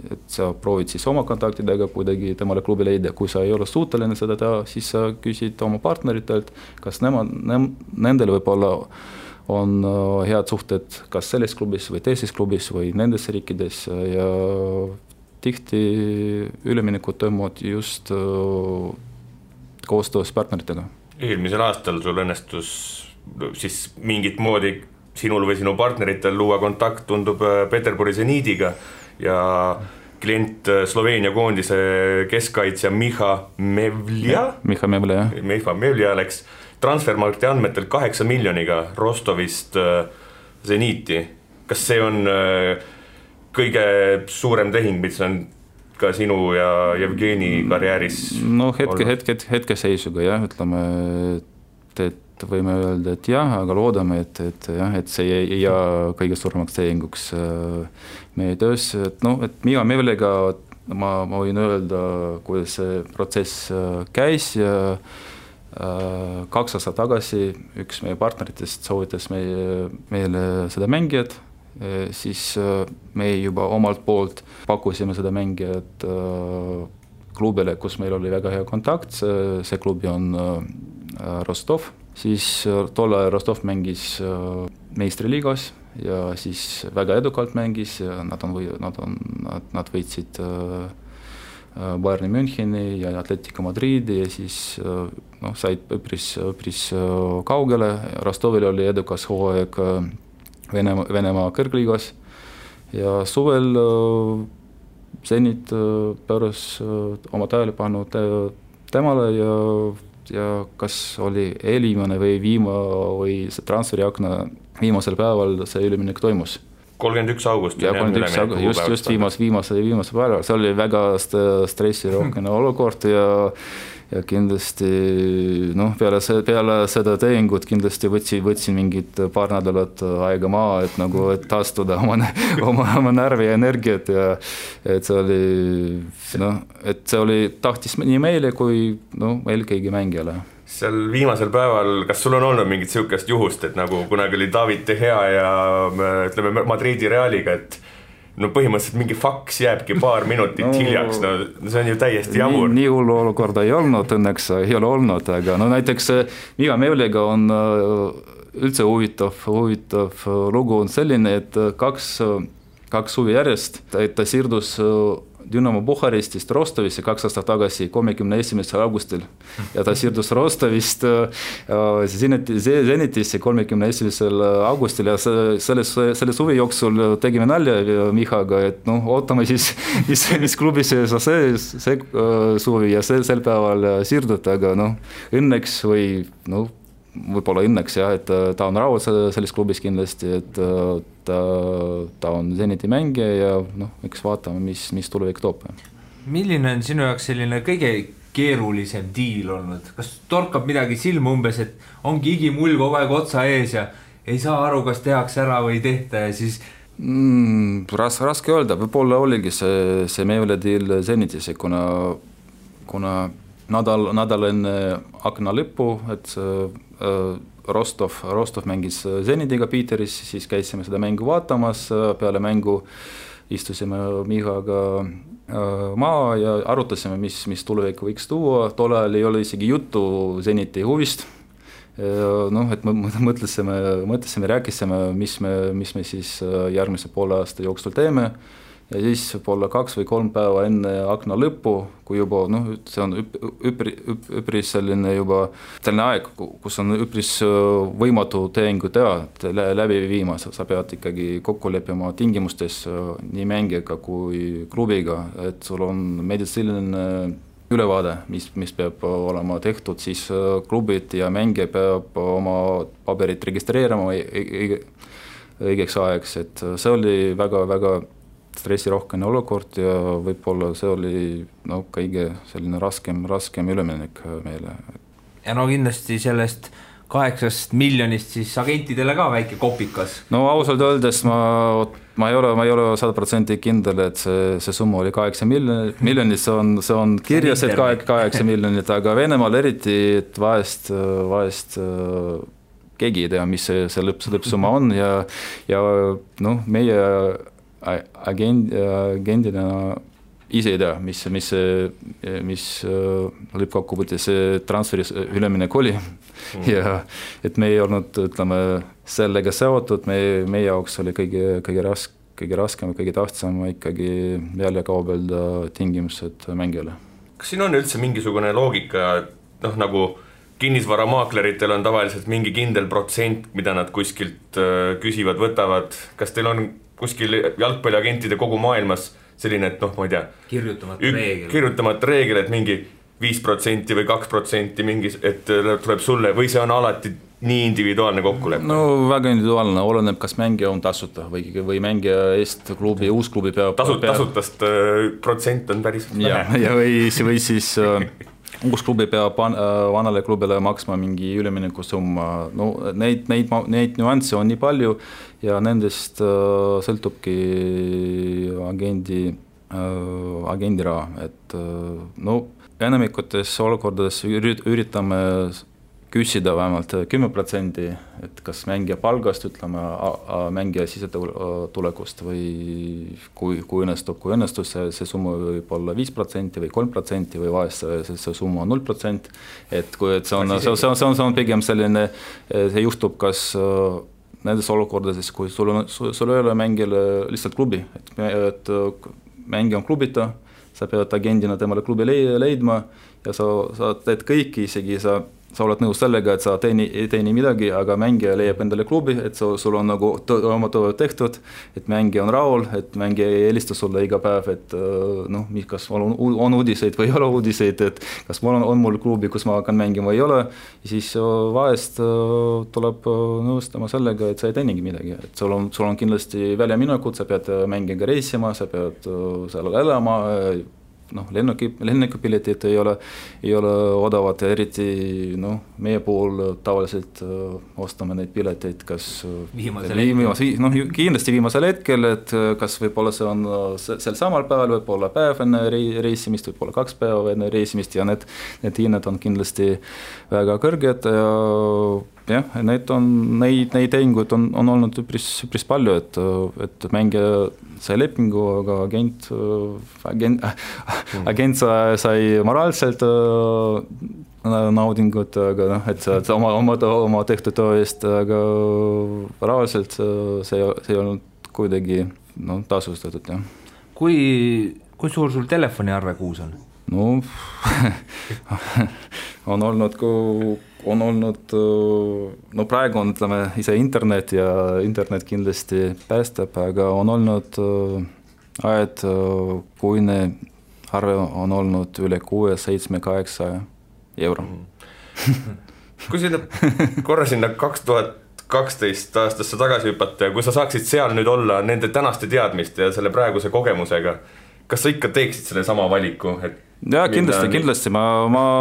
et sa proovid siis oma kontaktidega kuidagi temale klubi leida, kui sa ei ole suuteline seda teha, siis sa küsid oma partneritelt, kas nendel võib-olla on head suhted kas selles klubis või teises klubis või nendes riikides ja tihti üleminekud toimuvad just koostöös partneritega. Eelmisel aastal sul õnnestus siis mingit moodi sinul või sinu partneritel luua kontakt, tundub Peterburi Zeniidiga ja klient Sloveenia koondise keskkaitsja Miha Mevlja läks transfermarkti andmetel 8 miljoniga Rostovist Zeniiti. Kas see on kõige suurem tehing, mis on ka sinu ja Jevgeni karjääris? Hetkeseisuga jah, ütleme, et võime öelda, et jah, aga loodame, et see ei jää kõige suuremaks tehinguks meie töös. Et Miha Mevlega ma võin öelda, kuidas see protsess käis ja 2 aastat tagasi üks meie partneritest soovitas meile seda mängijat, siis me juba omalt poolt pakkusime seda mängijat klubile, kus meil oli väga hea kontakt, see klubi on Rostov, siis tolle Rostov mängis meistriliigas ja siis väga edukalt mängis ja nad võitsid Bayern Müncheni ja Atletico Madridi ja siis said üpris kaugele. Rostovil oli edukas hooaeg Venemaa kõrgliigas ja suvel Zenit pööras oma tähelepanu temale ja kas oli eelviimane või see transferiakna viimasel päeval see üleminek toimus. 31 august. Ja 31 august, just viimase päeval. See oli väga stressirohkene olukord ja ja kindlasti peale seda tehingut kindlasti võtsin mingid paar nädalat aega maha, et nagu et taastuda oma närvi ja energiat ja et see oli tahtis nii meile kui eelkõige mängijale. Seal viimasel päeval, kas sul on olnud mingit siukest juhust, et nagu kunagi oli David De Gea ja ütleme Madridi Realiga, et põhimõtteliselt mingi faks jääbki paar minutit hiljaks, see on ju täiesti jamur. Nii hullu olukorda ei olnud, õnneks ei ole olnud, aga näiteks Miga Mevliga on üldse huvitav lugu on selline, et kaks suvi järjest, et ta siirdus Dünamo Bukarestist Rostovisse 2 aastat tagasi 31. augustil ja ta siirdus Rostovist Zenitisse 31. augustil ja selle suvi jooksul tegime nalja Mihaga, et ootame siis, mis klubi see suvi ja sel päeval siirdud, aga õnneks või võib-olla õnneks jah, et ta on rahul selles klubis kindlasti, et ta on Zeniti mängija ja eks vaatame, mis tulevik toob. Milline on sinu jaoks selline kõige keerulisem diil olnud? Kas torkab midagi silma umbes, et ongi igimull kogu aeg otsa ees ja ei saa aru, kas tehakse ära või ei tehta ja siis... Raske öelda, võib-olla oligi see Mevle diil Zenitis, kuna nädal enne akna lõppu, et Rostov mängis Zenitiga Peteris, siis käisime seda mängu vaatamas, peale mängu istusime Mihaga maa ja arutasime, mis tulevik võiks tuua, tol ajal ei ole isegi juttu Zeniti huvist, et mõtlesime, rääkisime, mis me siis järgmise poole aasta jooksul teeme. Ja siis võib-olla 2 või 3 päeva enne akna lõppu, kui juba, see on üpris selline aeg, kus on üpris võimatu tehingu teha läbi viima, sa pead ikkagi kokku leppima tingimustes nii mängijaga kui klubiga, et sul on meditsiiniline ülevaade, mis peab olema tehtud, siis klubid ja mängija peab oma paberit registreerima õigeks ajaks, et see oli väga stressirohkene olukord ja võib-olla see oli kõige selline raskem üleminek meile. Ja kindlasti sellest 8 miljonist siis agentidele ka väike kopikas. Ausalt öeldes ma ei ole 100% kindel, et see summa oli 8 miljonit, see on kirjas, et 8 miljonit, aga Venemaal eriti, et vahest keegi ei tea, mis see lõppsumma on ja meie agendina ise ei tea, mis lõppkokkuvõttes see transferi üleminek oli ja et me ei olnud, ütleme, sellega seotud, meie jaoks oli kõige raskem ja kõige tähtsam ikkagi jälle kaubelda tingimused mängijale. Kas siin on üldse mingisugune loogika, nagu kinnisvaramakleritel on tavaliselt mingi kindel protsent, mida nad kuskilt küsivad, võtavad, kas teil on kuskil jalgpalliagentide kogu maailmas selline, et ma ei tea, kirjutamata reegel, et mingi 5% või 2% mingi, et tuleb sulle või see on alati nii individuaalne kokkulepe? Väga individuaalne, oleneb, kas mängija on tasuta või mängija eest klubi, uus klubi peab... Tasutast protsent on päris vähe. Ja või siis uus klubi peab vanale klubile maksma mingi ülemineku summa. Neid nüansse on nii palju ja nendest sõltubki agendi raha, et enamikutes olukordades üritame küsida vähemalt 10%, et kas mängija palgast, ütleme, mängija sisetulekust või kui õnnestus, see summa võib olla 5% või 3% või vahest see summa on 0%, et see on pigem selline, see juhtub kas nendes olukordades, kui sul ei ole mängijale lihtsalt klubi, et mängija on klubita, sa pead agendina temale klubi leidma ja sa teed kõiki, isegi sa oled nõus sellega, et sa ei teeni midagi, aga mängija leiab endale klubi, et sul on nagu oma töö tehtud, et mängija on rahul, et mängija ei helista sulle iga päev, et kas on uudiseid või ei ole uudiseid, et kas on mul klubi, kus ma hakkan mängima või ei ole, ja siis vahest tuleb nõustama sellega, et sa ei teenigi midagi, et sul on kindlasti väljaminekud, sa pead mängijaga reisima, sa pead seal elama, lennukipiletid ei ole odavad ja eriti meie pool tavaliselt ostame neid pileteid kas kindlasti viimasel hetkel, et kas võib-olla see on sel samal päeval, võib-olla päev enne reisimist, võib-olla 2 päeva enne reisimist ja need hinnad on kindlasti väga kõrged ja neid tehinguid on olnud üpris palju, et mängija sai lepingu, aga agent sai moraalselt naudingut, aga et oma tehtud töö eest, aga rahaliselt see ei olnud kuidagi tasustatud, jah. Kui suur sul telefoniarve kuus on? On olnud, praegu on, ütleme, ise internet ja internet kindlasti päästab, aga on olnud ajad, kuine arve on olnud üle 6, 7, 8 euro. Kui korra sinna 2012 aastasse tagasi hüpata ja kui sa saaksid seal nüüd olla nende tänaste teadmiste ja selle praeguse kogemusega, kas sa ikka teeksid selle sama valiku? Ja kindlasti, ma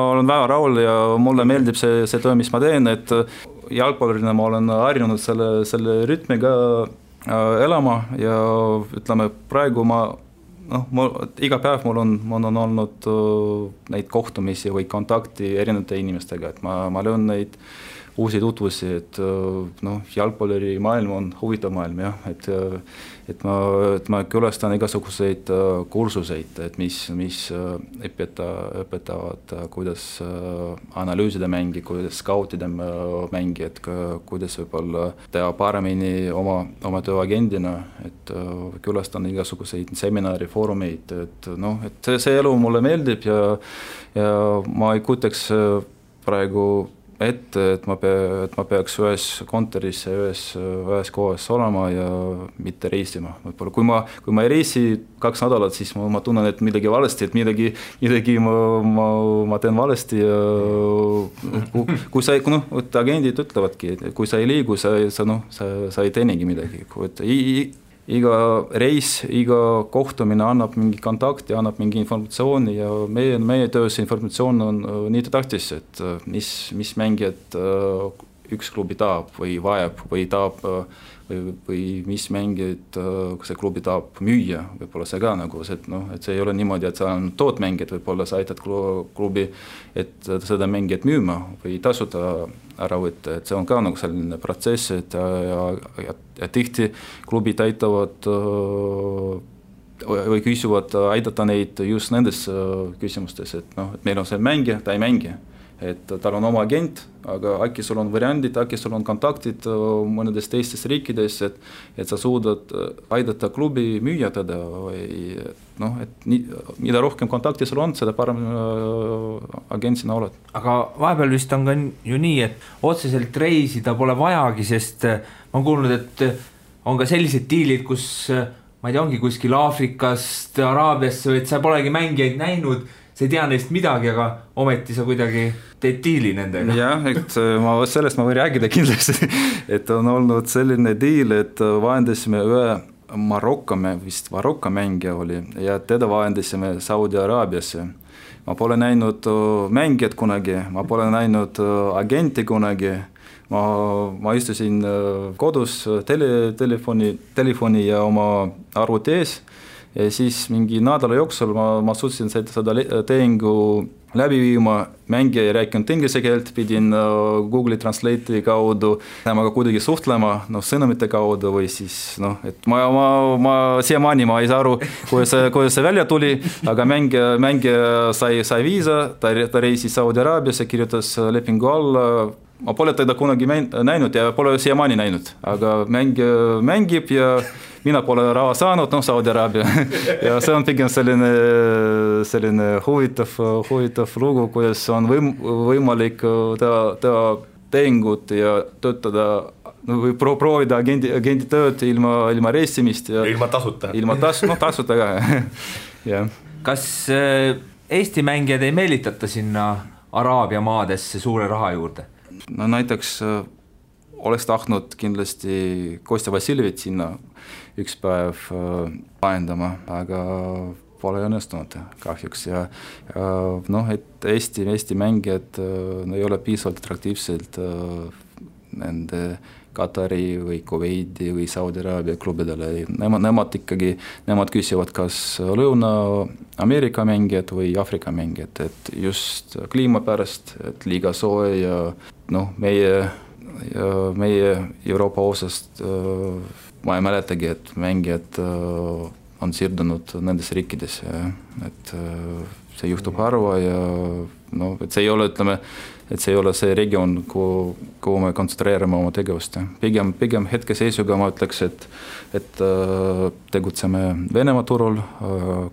olen väga rahul ja mulle meeldib see töö, mis ma teen, et jalgpallurina ma olen harjunud selle rütmiga elama ja ütleme, praegu iga päev mul on olnud neid kohtumisi või kontakti erinevate inimestega, et ma löön neid uusi tutvusi, et jalgpalluri maailm on huvitav maailm, jah, et ma külastan igasuguseid kursuseid, et mis õpetavad, kuidas analüüsida mängi, kuidas skautida mängi, et kuidas võib-olla teha paremini oma tööagendina, et külastan igasuguseid seminari, foorumeid, et see elu mulle meeldib ja ma ei kuteks praegu et ma peaks ühes kontoris ühes kohas olema ja mitte reisima. Võib-olla kui ma ei reisi 2 nädalat, siis ma tunnen, et midagi valesti, et midagi ma teen valesti ja kui sa agendid ütlevadki, et kui sa ei liigu, sa ei teenigi midagi. Iga reis, iga kohtumine annab mingi kontakti, annab mingi informatsiooni ja meie töös informatsioon on nii tähtis, et mis mängijad üks klubi tahab või vajab või mis mängijad see klubi tahab müüa, võib-olla see ka et see ei ole niimoodi, et sa on tootmängijad, võib-olla sa aitad klubi, et seda mängijat müüma või tasuta ära võtta, et see on ka selline protsess, et ja tihti klubid aitavad või küsivad aidata neid just nendes küsimustes, et meil on see mängija, ta ei mängi. Et tal on oma agent, aga äkki sul on variandid, äkki sul on kontaktid mõnedes teistes riikides, et sa suudad aidata klubi müüa teda või et mida rohkem kontakti sul on, seda parem agent sina oled. Aga vahepeal vist on ka ju nii, et otseselt reisida pole vajagi, sest ma olen kuulnud, et on ka sellised diilid, kus ma ei tea, ongi kuskil Aafrikast, Araabiasse, et sa polegi mängijaid näinud, sa ei tea neist midagi, aga ometi sa kuidagi teed diili nendega. Jah, et sellest ma võin rääkida kindlasti, et on olnud selline diil, et vahendasime ühe Marokko mängija oli ja teda vahendasime Saudi Araabiasse. Ma pole näinud mängijat kunagi, ma pole näinud agenti kunagi, ma istusin kodus telefoni ja oma arvuti ees. Ja siis mingi nädala jooksul ma suutsin seda tehingu läbi viima, mängija ei rääkinud inglise keelt, pidin Google Translate'i kaudu temaga kuidagi suhtlema, sõnumite kaudu või siis, et ma siiamaani ma ei saa aru, kuidas see välja tuli, aga mängija sai viisa, ta reisis Saudi Araabiasse, kirjutas lepingu alla, ma pole teda kunagi näinud ja pole siiamaani näinud, aga mängija mängib ja mina pole raha saanud, Saudi Araabia. Ja see on pigem selline huvitav lugu, kuidas on võimalik teha tehingut ja töötada või proovida agendi tööd ilma reisimist. Ja ilma tasuta. Tasuta ka. Ja. Kas Eesti mängijad ei meelitata sinna Araabia maadesse suure raha juurde? Näiteks oleks tahtnud kindlasti Kostja Vassiljevit sinna üks päev vahendama, aga pole õnnestunud kahjuks ja noh, et Eesti mängijad ei ole piisavalt atraktiivsed nende Katari või Kuveidi või Saudi Araabia klubidele. Nemad küsivad kas Lõuna-Ameerika mängijad või Afrika mängijad, et just kliima pärast, et liiga soe ja noh, meie Euroopa osast ma ei mäletagi, et mängijad on siirdunud nendes riikides, et see juhtub harva ja noh, et see ei ole, ütleme, et see ei ole see regioon, kuhu me kontsentreerime oma tegevust. Pigem hetkeseisuga ma ütleks, et tegutseme Venemaa turul,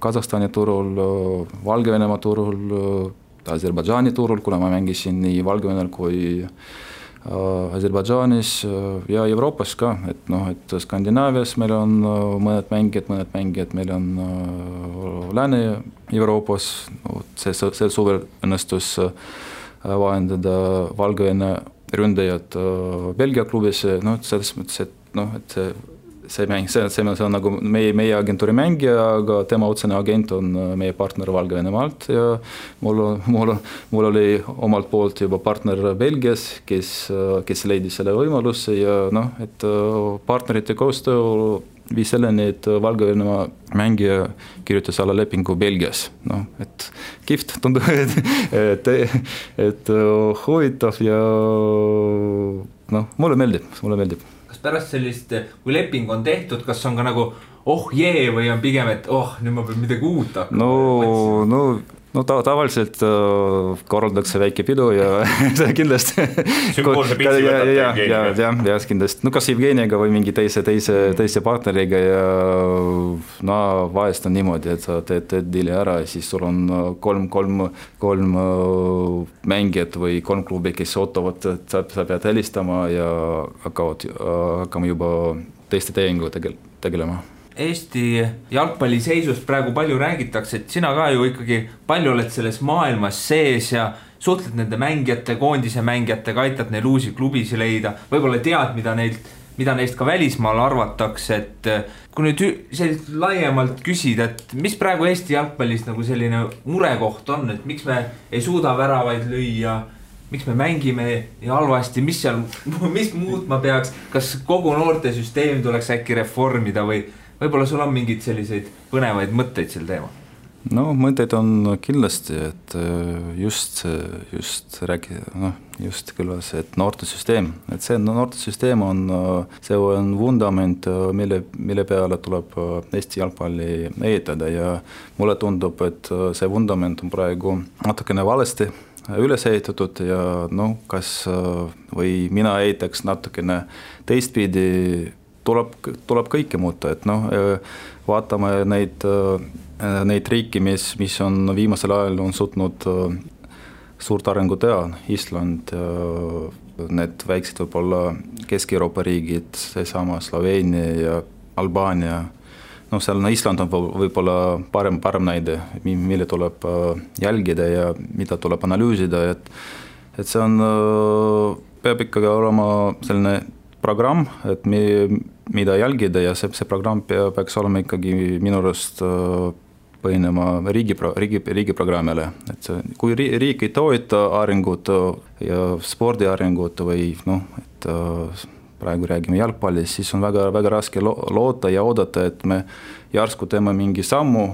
Kasahstani turul, Valgevenemaa turul, Aserbaidžaani turul, kuna ma mängisin nii Valgevenel kui Aserbaidžaanis ja Euroopas ka, et noh, et Skandinaavias meil on mõned mängijad, meil on Lääne-Euroopas, sel suvel õnnestus vahendada Valgevene ründajad Belgia klubis, noh, selles mõttes, et noh, et see on nagu meie agentuuri mängija, aga tema otsene agent on meie partner Valgevenemaalt ja mul oli omalt poolt juba partner Belgias, kes leidis selle võimaluse ja noh, et partnerite koostöö viis selleni, et Valgevenemaa mängija kirjutas alla lepingu Belgias. No, et kihvt tundub, et huvitav ja noh, mulle meeldib. Kas pärast sellist, kui leping on tehtud, kas on ka nagu või on pigem, et nüüd ma pean midagi uut hakkama? No tavaliselt korraldatakse väike pidu ja see kindlasti sümboolse pitsi võtab Evgeniga. Ja kindlasti, no kas Evgeniga või mingi teise partneriga ja no vahest on niimoodi, et sa teed diili ära ja siis sul on kolm mängijat või 3 klubi, kes ootavad, et sa pead helistama ja hakkame juba teiste tehingu tegelema. Eesti jalgpalli seisust praegu palju räägitakse, et sina ka ju ikkagi palju oled selles maailmas sees ja suhtled nende mängijate, koondise mängijatega, aitad neil uusi klubisi leida, võib-olla tead, mida neist ka välismaal arvatakse, et kui nüüd selliselt laiemalt küsida, et mis praegu Eesti jalgpallis nagu selline murekoht on, et miks me ei suuda väravaid lüüa, miks me mängime ja halvasti, mis muutma peaks, kas kogu noortesüsteem tuleks äkki reformida või võib-olla sul on mingid selliseid põnevaid mõtteid sel teema? No mõtteid on kindlasti, et just kõlas, et noortesüsteem, et see noortesüsteem on vundament, mille peale tuleb Eesti jalgpalli ehitada ja mulle tundub, et see vundament on praegu natukene valesti üles ehitatud ja noh, kas või mina ehitaks natukene teistpidi, tuleb kõike muuta, et noh, vaatame neid riiki, mis on viimasel ajal on suutnud suurt arengu teha, Island, need väiksed võib-olla Kesk-Euroopa riigid, seesama Sloveenia ja Albaania, noh, seal Island on võib-olla parem näide, mille tuleb jälgida ja mida tuleb analüüsida, et see on, peab ikkagi olema selline programm, et mida jälgida ja see programm peaks olema ikkagi minu arust põhinema riigi programmile, et kui riik ei toeta arengut ja spordi arengut või noh, et praegu räägime jalgpallist, siis on väga raske loota ja oodata, et me järsku teeme mingi sammu,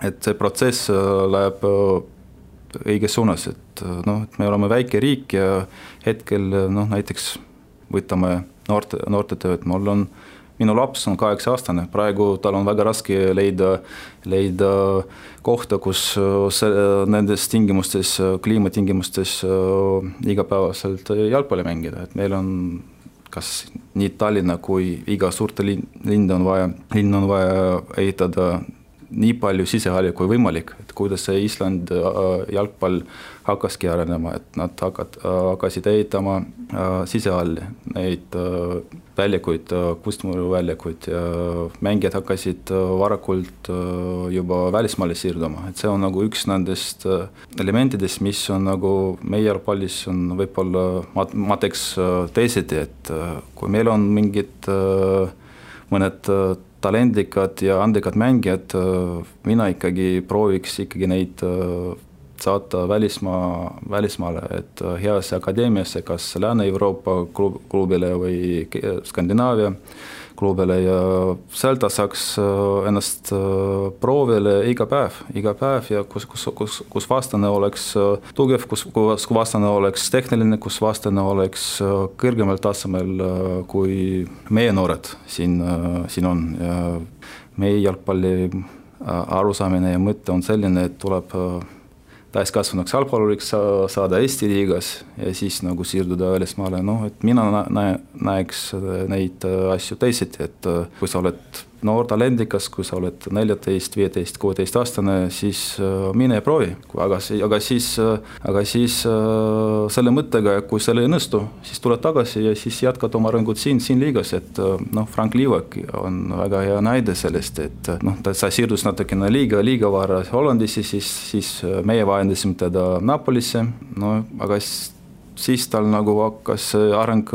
et see protsess läheb õiges suunas, et noh, et me oleme väike riik ja hetkel noh, näiteks võtame noorte tööd, minu laps on 8-aastane, praegu tal on väga raske leida kohta, kus nendes tingimustes, kliimatingimustes igapäevaselt jalgpalli mängida, et meil on kas nii Tallinna kui iga suurte linn on vaja ehitada nii palju sisehalli kui võimalik, et kuidas see Island jalgpall hakkaski arenema, et nad hakkasid ehitama sisehalli, neid väljakuid, kustmuru väljakuid ja mängijad hakkasid varakult juba välismaale siirduma, et see on nagu üks nendest elementidest, mis on nagu meie jalgpallis on võib-olla, ma teeks teisiti, et kui meil on mingid mõned talendikad ja andekad mängijad, mina ikkagi prooviks ikkagi neid saata välismaale, et heasse akadeemiasse, kas Lääne-Euroopa klubile või Skandinaavia klubile ja seal ta saaks ennast proovile iga päev ja kus vastane oleks tugev, kus vastane oleks tehniline, kus vastane oleks kõrgemal tasemel kui meie noored siin on ja meie jalgpalli arusaamine ja mõte on selline, et tuleb täiskasvanuks jalgpalluriks saada Eesti liigas ja siis nagu siirduda välismaale, et mina näeks neid asju teisiti, et kui sa oled noor talendikas, kui sa oled 14, 15, 16 aastane, siis mine ja proovi, aga siis selle mõttega, kui selle ei õnnestu, siis tuled tagasi ja siis jätkad oma arengut siin liigas, et Frank Liivak on väga hea näide sellest, et sa siirdus natukene liiga vara Hollandisse, siis meie vahendasime teda Napolisse, aga siis tal nagu hakkas areng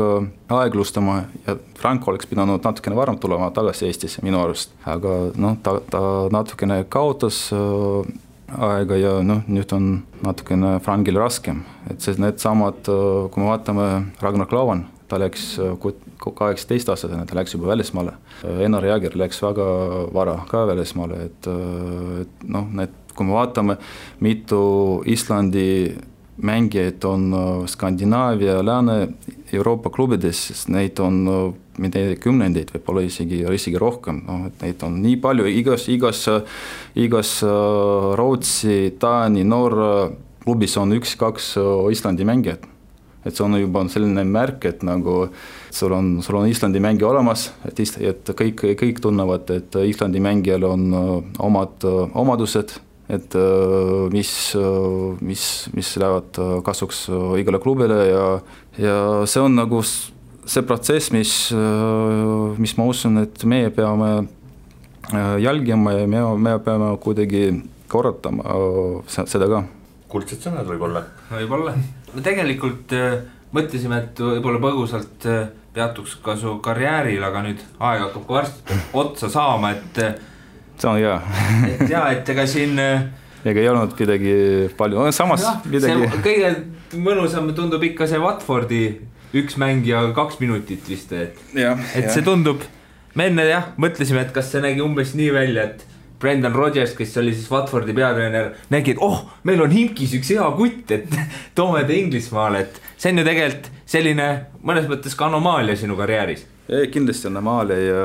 aeglustama ja Frank oleks pidanud natukene varem tulema tagasi Eestisse minu arust, aga ta natukene kaotas aega ja nüüd on natukene Frankil raskem, et need samad, kui me vaatame Ragnar Klavan, ta läks 18-aastasena, ta läks juba välismaale, Einar Jääger läks väga vara ka välismaale, et kui me vaatame, mitu Islandi mängijaid on Skandinaavia, Lääne-Euroopa klubides, sest neid on kümnendeid, võib-olla isegi rohkem, et neid on nii palju, igas Rootsi, Taani, Norra klubis on 1-2 Islandi mängijad. Et see on juba selline märk, et nagu sul on Islandi mängija olemas, et kõik tunnevad, et Islandi mängijal on omad omadused, et mis lähevad kasuks igale klubile ja see on nagu see protsess, mis ma usun, et meie peame jälgima ja me peame kuidagi korratama seda ka. Kuldsed sõnad võib-olla. Me tegelikult mõtlesime, et võib-olla põgusalt peatuks ka su karjääril, aga nüüd aeg hakkab varsti otsa saama, et see on hea. et ega siin ega ei olnud midagi palju, samas midagi. Kõige mõnusam tundub ikka see Watfordi üks mängija 2 minutit vist, et see tundub, me enne mõtlesime, et kas see nägi umbes nii välja, et Brendan Rodgers, kes oli siis Watfordi peatreener, nägi, et meil on Himkis üks hea kutt, et toome ta Inglismaale, et see on ju tegelikult selline mõnes mõttes ka anomaalia sinu karjääris. Kindlasti anomaalia ja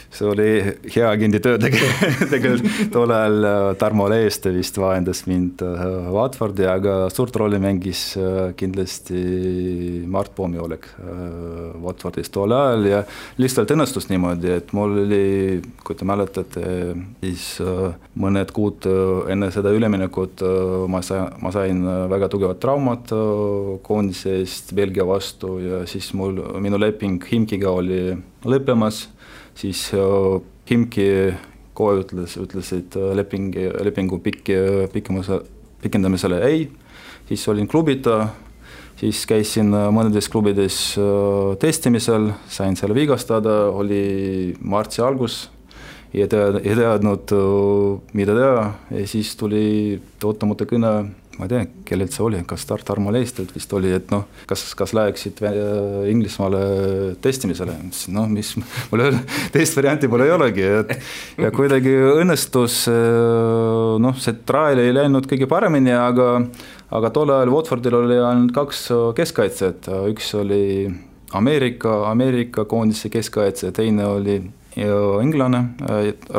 see oli hea agendi töö tegelikult tol ajal Tarmo Leeste vist vahendas mind Watfordi, aga suurt rolli mängis kindlasti Mart Poomioleg Watfordis tol ajal ja lihtsalt õnnestus niimoodi, et mul oli, kui te mäletate, siis mõned kuud enne seda üleminekut ma sain väga tugevat traumat koondise eest Belgia vastu ja siis minu leping Himkiga oli lõppemas. Siis Himki kohe ütlesid lepingu pikendamisele ei, siis olin klubita, siis käisin mõnedes klubides testimisel, sain selle vigastada, oli martsi algus ja teadnud, mida teha ja siis tuli ootamata kõne, ma ei tea, kellelt see oli, kas Tarmo Leestelt vist oli, et kas läheksid Inglismaale testimisele, mis mul teist varianti pole ei olegi, ja kuidagi õnnestus, see trail ei läinud kõige paremini, aga tol ajal Watfordil oli ainult 2 keskkaitset, üks oli Ameerika koondise keskkaitse, teine oli inglane,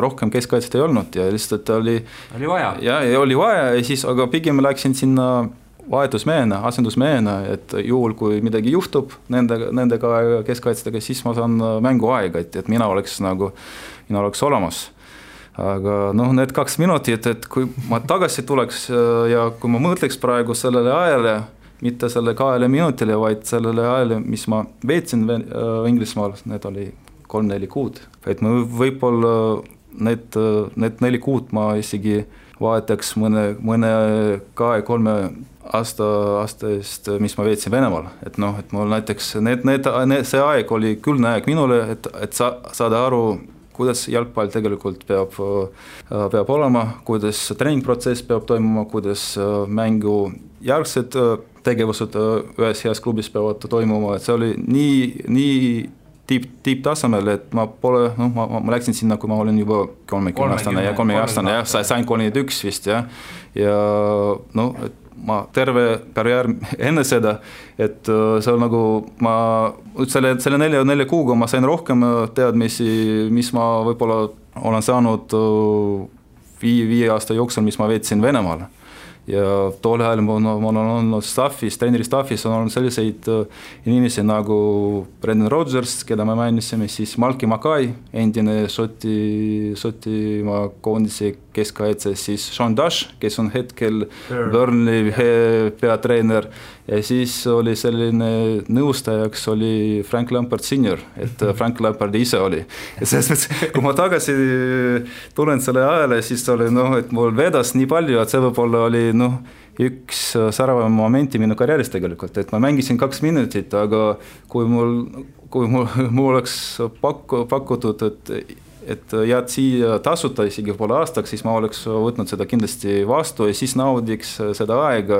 rohkem keskkaitset ei olnud ja lihtsalt oli vaja. Ja oli vaja ja siis, aga pigem läksin sinna vahetusmehena, asendusmehena, et juhul kui midagi juhtub nendega keskkaitsetega, siis ma saan mänguaega, et mina oleks olemas. Aga need 2 minutit, et kui ma tagasi tuleks ja kui ma mõtleks praegu sellele ajale, mitte selle 2 minutile, vaid sellele ajale, mis ma veetsin Inglismaal, need oli 3-4 kuud. Et ma võib-olla need 4 kuud ma isegi vahetaks mõne 2-3 aasta eest, mis ma veetsin Venemaal, et noh, et mul näiteks see aeg oli külgne aeg minule, et saada aru, kuidas jalgpall tegelikult peab olema, kuidas treeningprotsess peab toimuma, kuidas mängu järgsed tegevused ühes heas klubis peavad toimuma, et see oli nii tipptasemel, et ma läksin sinna, kui ma olin juba 30-aastane ja 30-aastane, jah, sain 31 vist, jah, ja noh, et ma terve karjäär enne seda, et see on nagu ma selle 4 kuuga ma sain rohkem teadmisi, mis ma võib-olla olen saanud 5 aasta jooksul, mis ma veetsin Venemaal. Ja tol ajal ma olen olnud treeneri staffis on olnud selliseid inimesi nagu Brendan Rodgers, keda me mainisime, siis Malki Makai, endine Šotimaa koondise keskkaitse, siis Sean Dash, kes on hetkel Burnley peatreener, ja siis oli selline nõustajaks oli Frank Lampard Senior, et Frank Lampard ise oli. Ja selles mõttes, kui ma tagasi tulen selle ajale, siis oli et mul vedas nii palju, et see võib-olla oli üks säravam momenti minu karjääris tegelikult, et ma mängisin 2 minutit, aga kui mul oleks pakutud, et jääd siia tasuta isegi poole aastaks, siis ma oleks võtnud seda kindlasti vastu ja siis naudiks seda aega,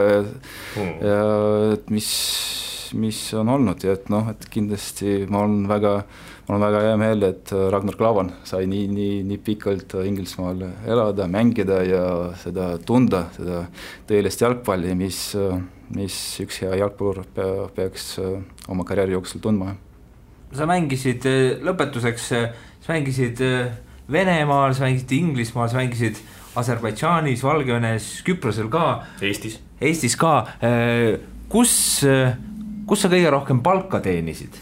mis on olnud ja et kindlasti ma olen väga hea meel, et Ragnar Klavan sai nii pikalt Inglismaal elada, mängida ja seda tunda, seda tõelist jalgpalli, mis üks hea jalgpallur peaks oma karjääri jooksul tundma. Sa mängisid lõpetuseks, sa mängisid Venemaal, sa mängisid Inglismaal, sa mängisid Aserbaidžaanis, Valgevenes, Küprosel ka. Eestis ka. Kus sa kõige rohkem palka teenisid?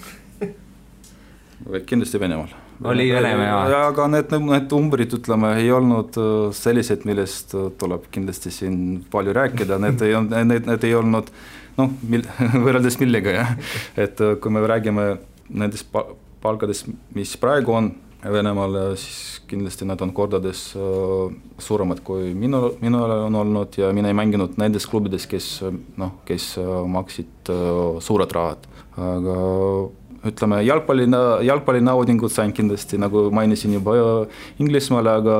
Kindlasti Venemaal. Oli Venemaa. Ja, aga need umbrid, ütleme, ei olnud sellised, millest tuleb kindlasti siin palju rääkida. Need ei olnud, võrreldes millega, jah. Et kui me räägime nendest palkadest, mis praegu on Venemaal, siis kindlasti nad on kordades suuremad kui minul on olnud ja mina ei mänginud nendes klubides, kes maksid suured rahad. Aga ütleme, jalgpalli naudingud sain kindlasti, nagu mainisin juba Inglismaale, aga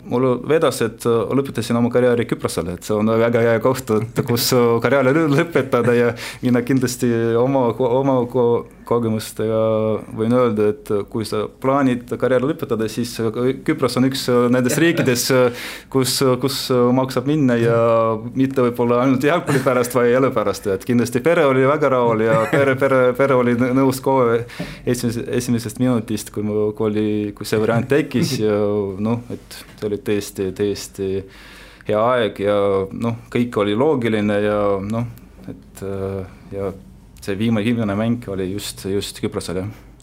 mul vedas, et lõpetasin oma karjääri Küprosele, et see on väga hea koht, kus karjääri lõpetada ja mina kindlasti oma kogemustega võin öelda, et kui sa plaanid karjääri lõpetada, siis Küpros on üks nendest riikides, kus maksab minna ja mitte võib-olla ainult jalgpalli pärast, vai elu pärast, et kindlasti pere oli väga rahul ja pere oli nõus kohe esimesest minutist, kui see variant tekkis ja et see oli tõesti hea aeg ja kõik oli loogiline ja ja see viimane mäng oli just Küprosele.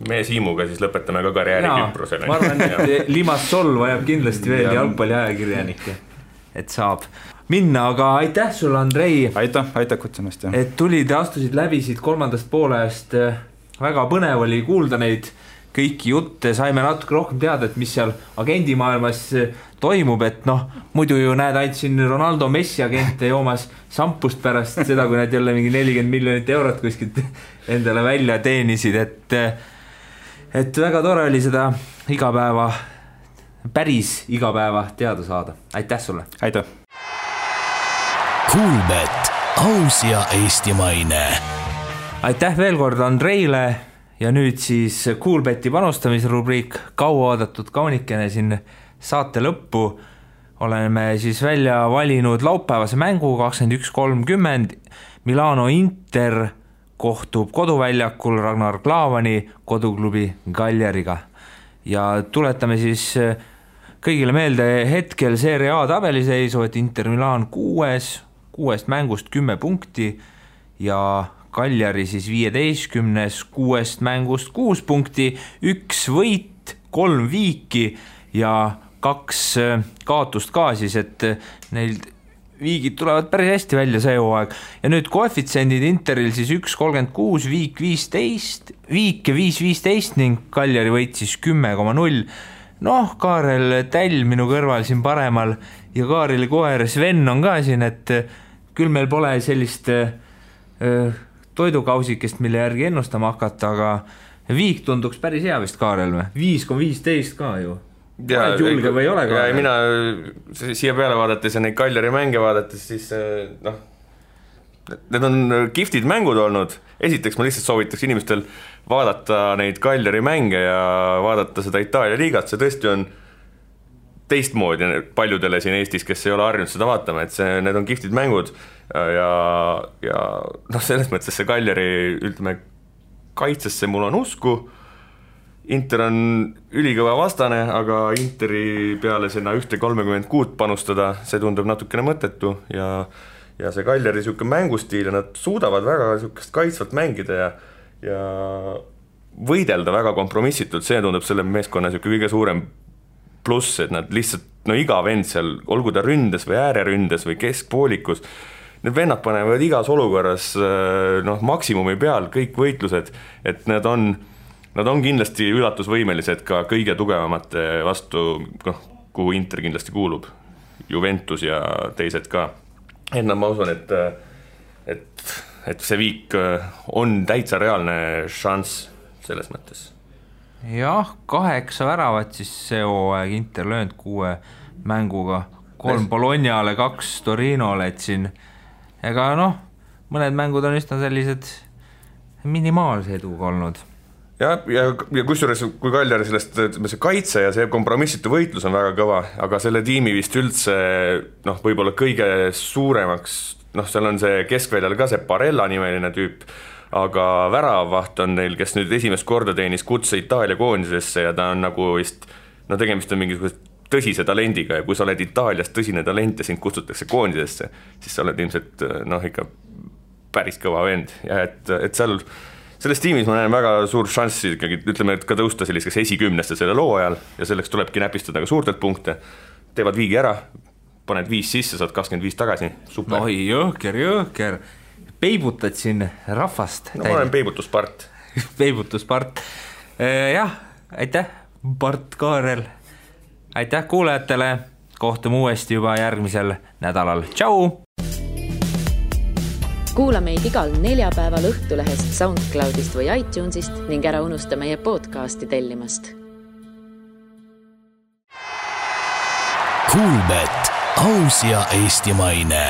Me Siimuga siis lõpetame ka karjääri Küprosele. Ma arvan, et Limassol vajab kindlasti veel jalgpalli ajakirjanikke, et saab minna, aga aitäh sulle, Andrei. Aitäh kutsumast. Et tulid ja astusid läbisid 3. poolajast. Väga põnev oli kuulda neid kõiki jutte, saime natuke rohkem teada, et mis seal agendimaailmas toimub, et muidu ju näed ainult siin Ronaldo Messi agente joomas sampust pärast seda, kui nad jälle mingi 40 miljonit eurot kuskilt endale välja teenisid, et väga tore oli seda päris igapäeva teada saada. Aitäh sulle! Aitäh! Kuulbet, aus ja eestimaine. Aitäh veel kord Andreile ja nüüd siis Kuulbeti panustamisrubriik, kaua oodatud kaunikene siin saate lõppu. Oleme siis välja valinud laupäevase mängu 21:30. Milano Inter kohtub koduväljakul Ragnar Klavani koduklubi Cagliariga. Ja tuletame siis kõigile meelde hetkel Serie A tabeliseisu, et Inter Milan 6 mängust 10 punkti ja Cagliari siis 15, 6 mängust 6 punkti, 1 võit, 3 viiki ja 2 kaotust ka siis, et neil viigid tulevad päris hästi välja see hooaeg. Ja nüüd koefitsendid Interil siis 1,36, viik 15, viike 5,15 ning Cagliari võit siis 10,0. Kaarel Täll minu kõrval siin paremal ja Kaareli koer Sven on ka siin, et küll meil pole sellist toidukausikest, mille järgi ennustama hakata, aga viik tunduks päris hea vist Kaarel või? 5,15 ka ju. Oled julge või ei ole Kaarel? Ja mina siia peale vaadates ja neid Kaljari mänge vaadates, siis need on kihvtid mängud olnud. Esiteks ma lihtsalt soovitaks inimestel vaadata neid Kaljari mänge ja vaadata seda Itaalia liigat, see tõesti on teistmoodi paljudele siin Eestis, kes ei ole harjunud seda vaatama, et need on kihvtid mängud ja selles mõttes see Kaljari ütleme kaitsesse mul on usku. Inter on ülikõva vastane, aga Interi peale sinna 1,36 panustada, see tundub natukene mõttetu ja see Kaljari siuke mängustiil ja nad suudavad väga siukest kaitsvalt mängida ja võidelda väga kompromissitult, see tundub selle meeskonna siuke kõige suurem pluss, et nad lihtsalt, iga vend seal, olgu ta ründes või ääreründes või keskpoolikus, need vennad panevad igas olukorras maksimumi peal kõik võitlused, et nad on kindlasti üllatusvõimelised ka kõige tugevamate vastu, kuhu Inter kindlasti kuulub, Juventus ja teised ka. Et ma usun, et see viik on täitsa reaalne šanss selles mõttes. Jah, 8 väravat siis see hooaeg Inter löönud 6 mänguga, 3 Bolognale, 2 Torinole, et siin ega mõned mängud on üsna sellised minimaalse eduga olnud. Ja kusjuures, kui Kaljari sellest see kaitse ja see kompromissitu võitlus on väga kõva, aga selle tiimi vist üldse võib-olla kõige suuremaks, seal on see keskväljal ka see Barella nimeline tüüp, aga väravvaht on neil, kes nüüd esimest korda teenis kutse Itaalia koondisesse ja ta on nagu vist, tegemist on mingisugust tõsise talendiga ja kui sa oled Itaalias tõsine talent ja sind kutsutakse koondisesse, siis sa oled ilmselt ikka päris kõva vend ja et selles tiimis ma näen väga suur šanssi ikkagi, ütleme, et ka tõusta selliseks esikümneste selle loo ajal ja selleks tulebki näpistada ka suurtelt punkte. Teevad viigi ära, paned 5 sisse, saad 25 tagasi. Super. Oi, jõhker. Peibutad siin rahvast. Ma olen peibutuspart. Peibutuspart. Jah, aitäh, Bart Kaarel. Aitäh kuulajatele. Kohtume uuesti juba järgmisel nädalal. Tšau! Kuula meid igal neljapäeval Õhtulehest, SoundCloudist või iTunesist ning ära unusta meie podcasti tellimast. Kuulbet, aus ja eestimaine.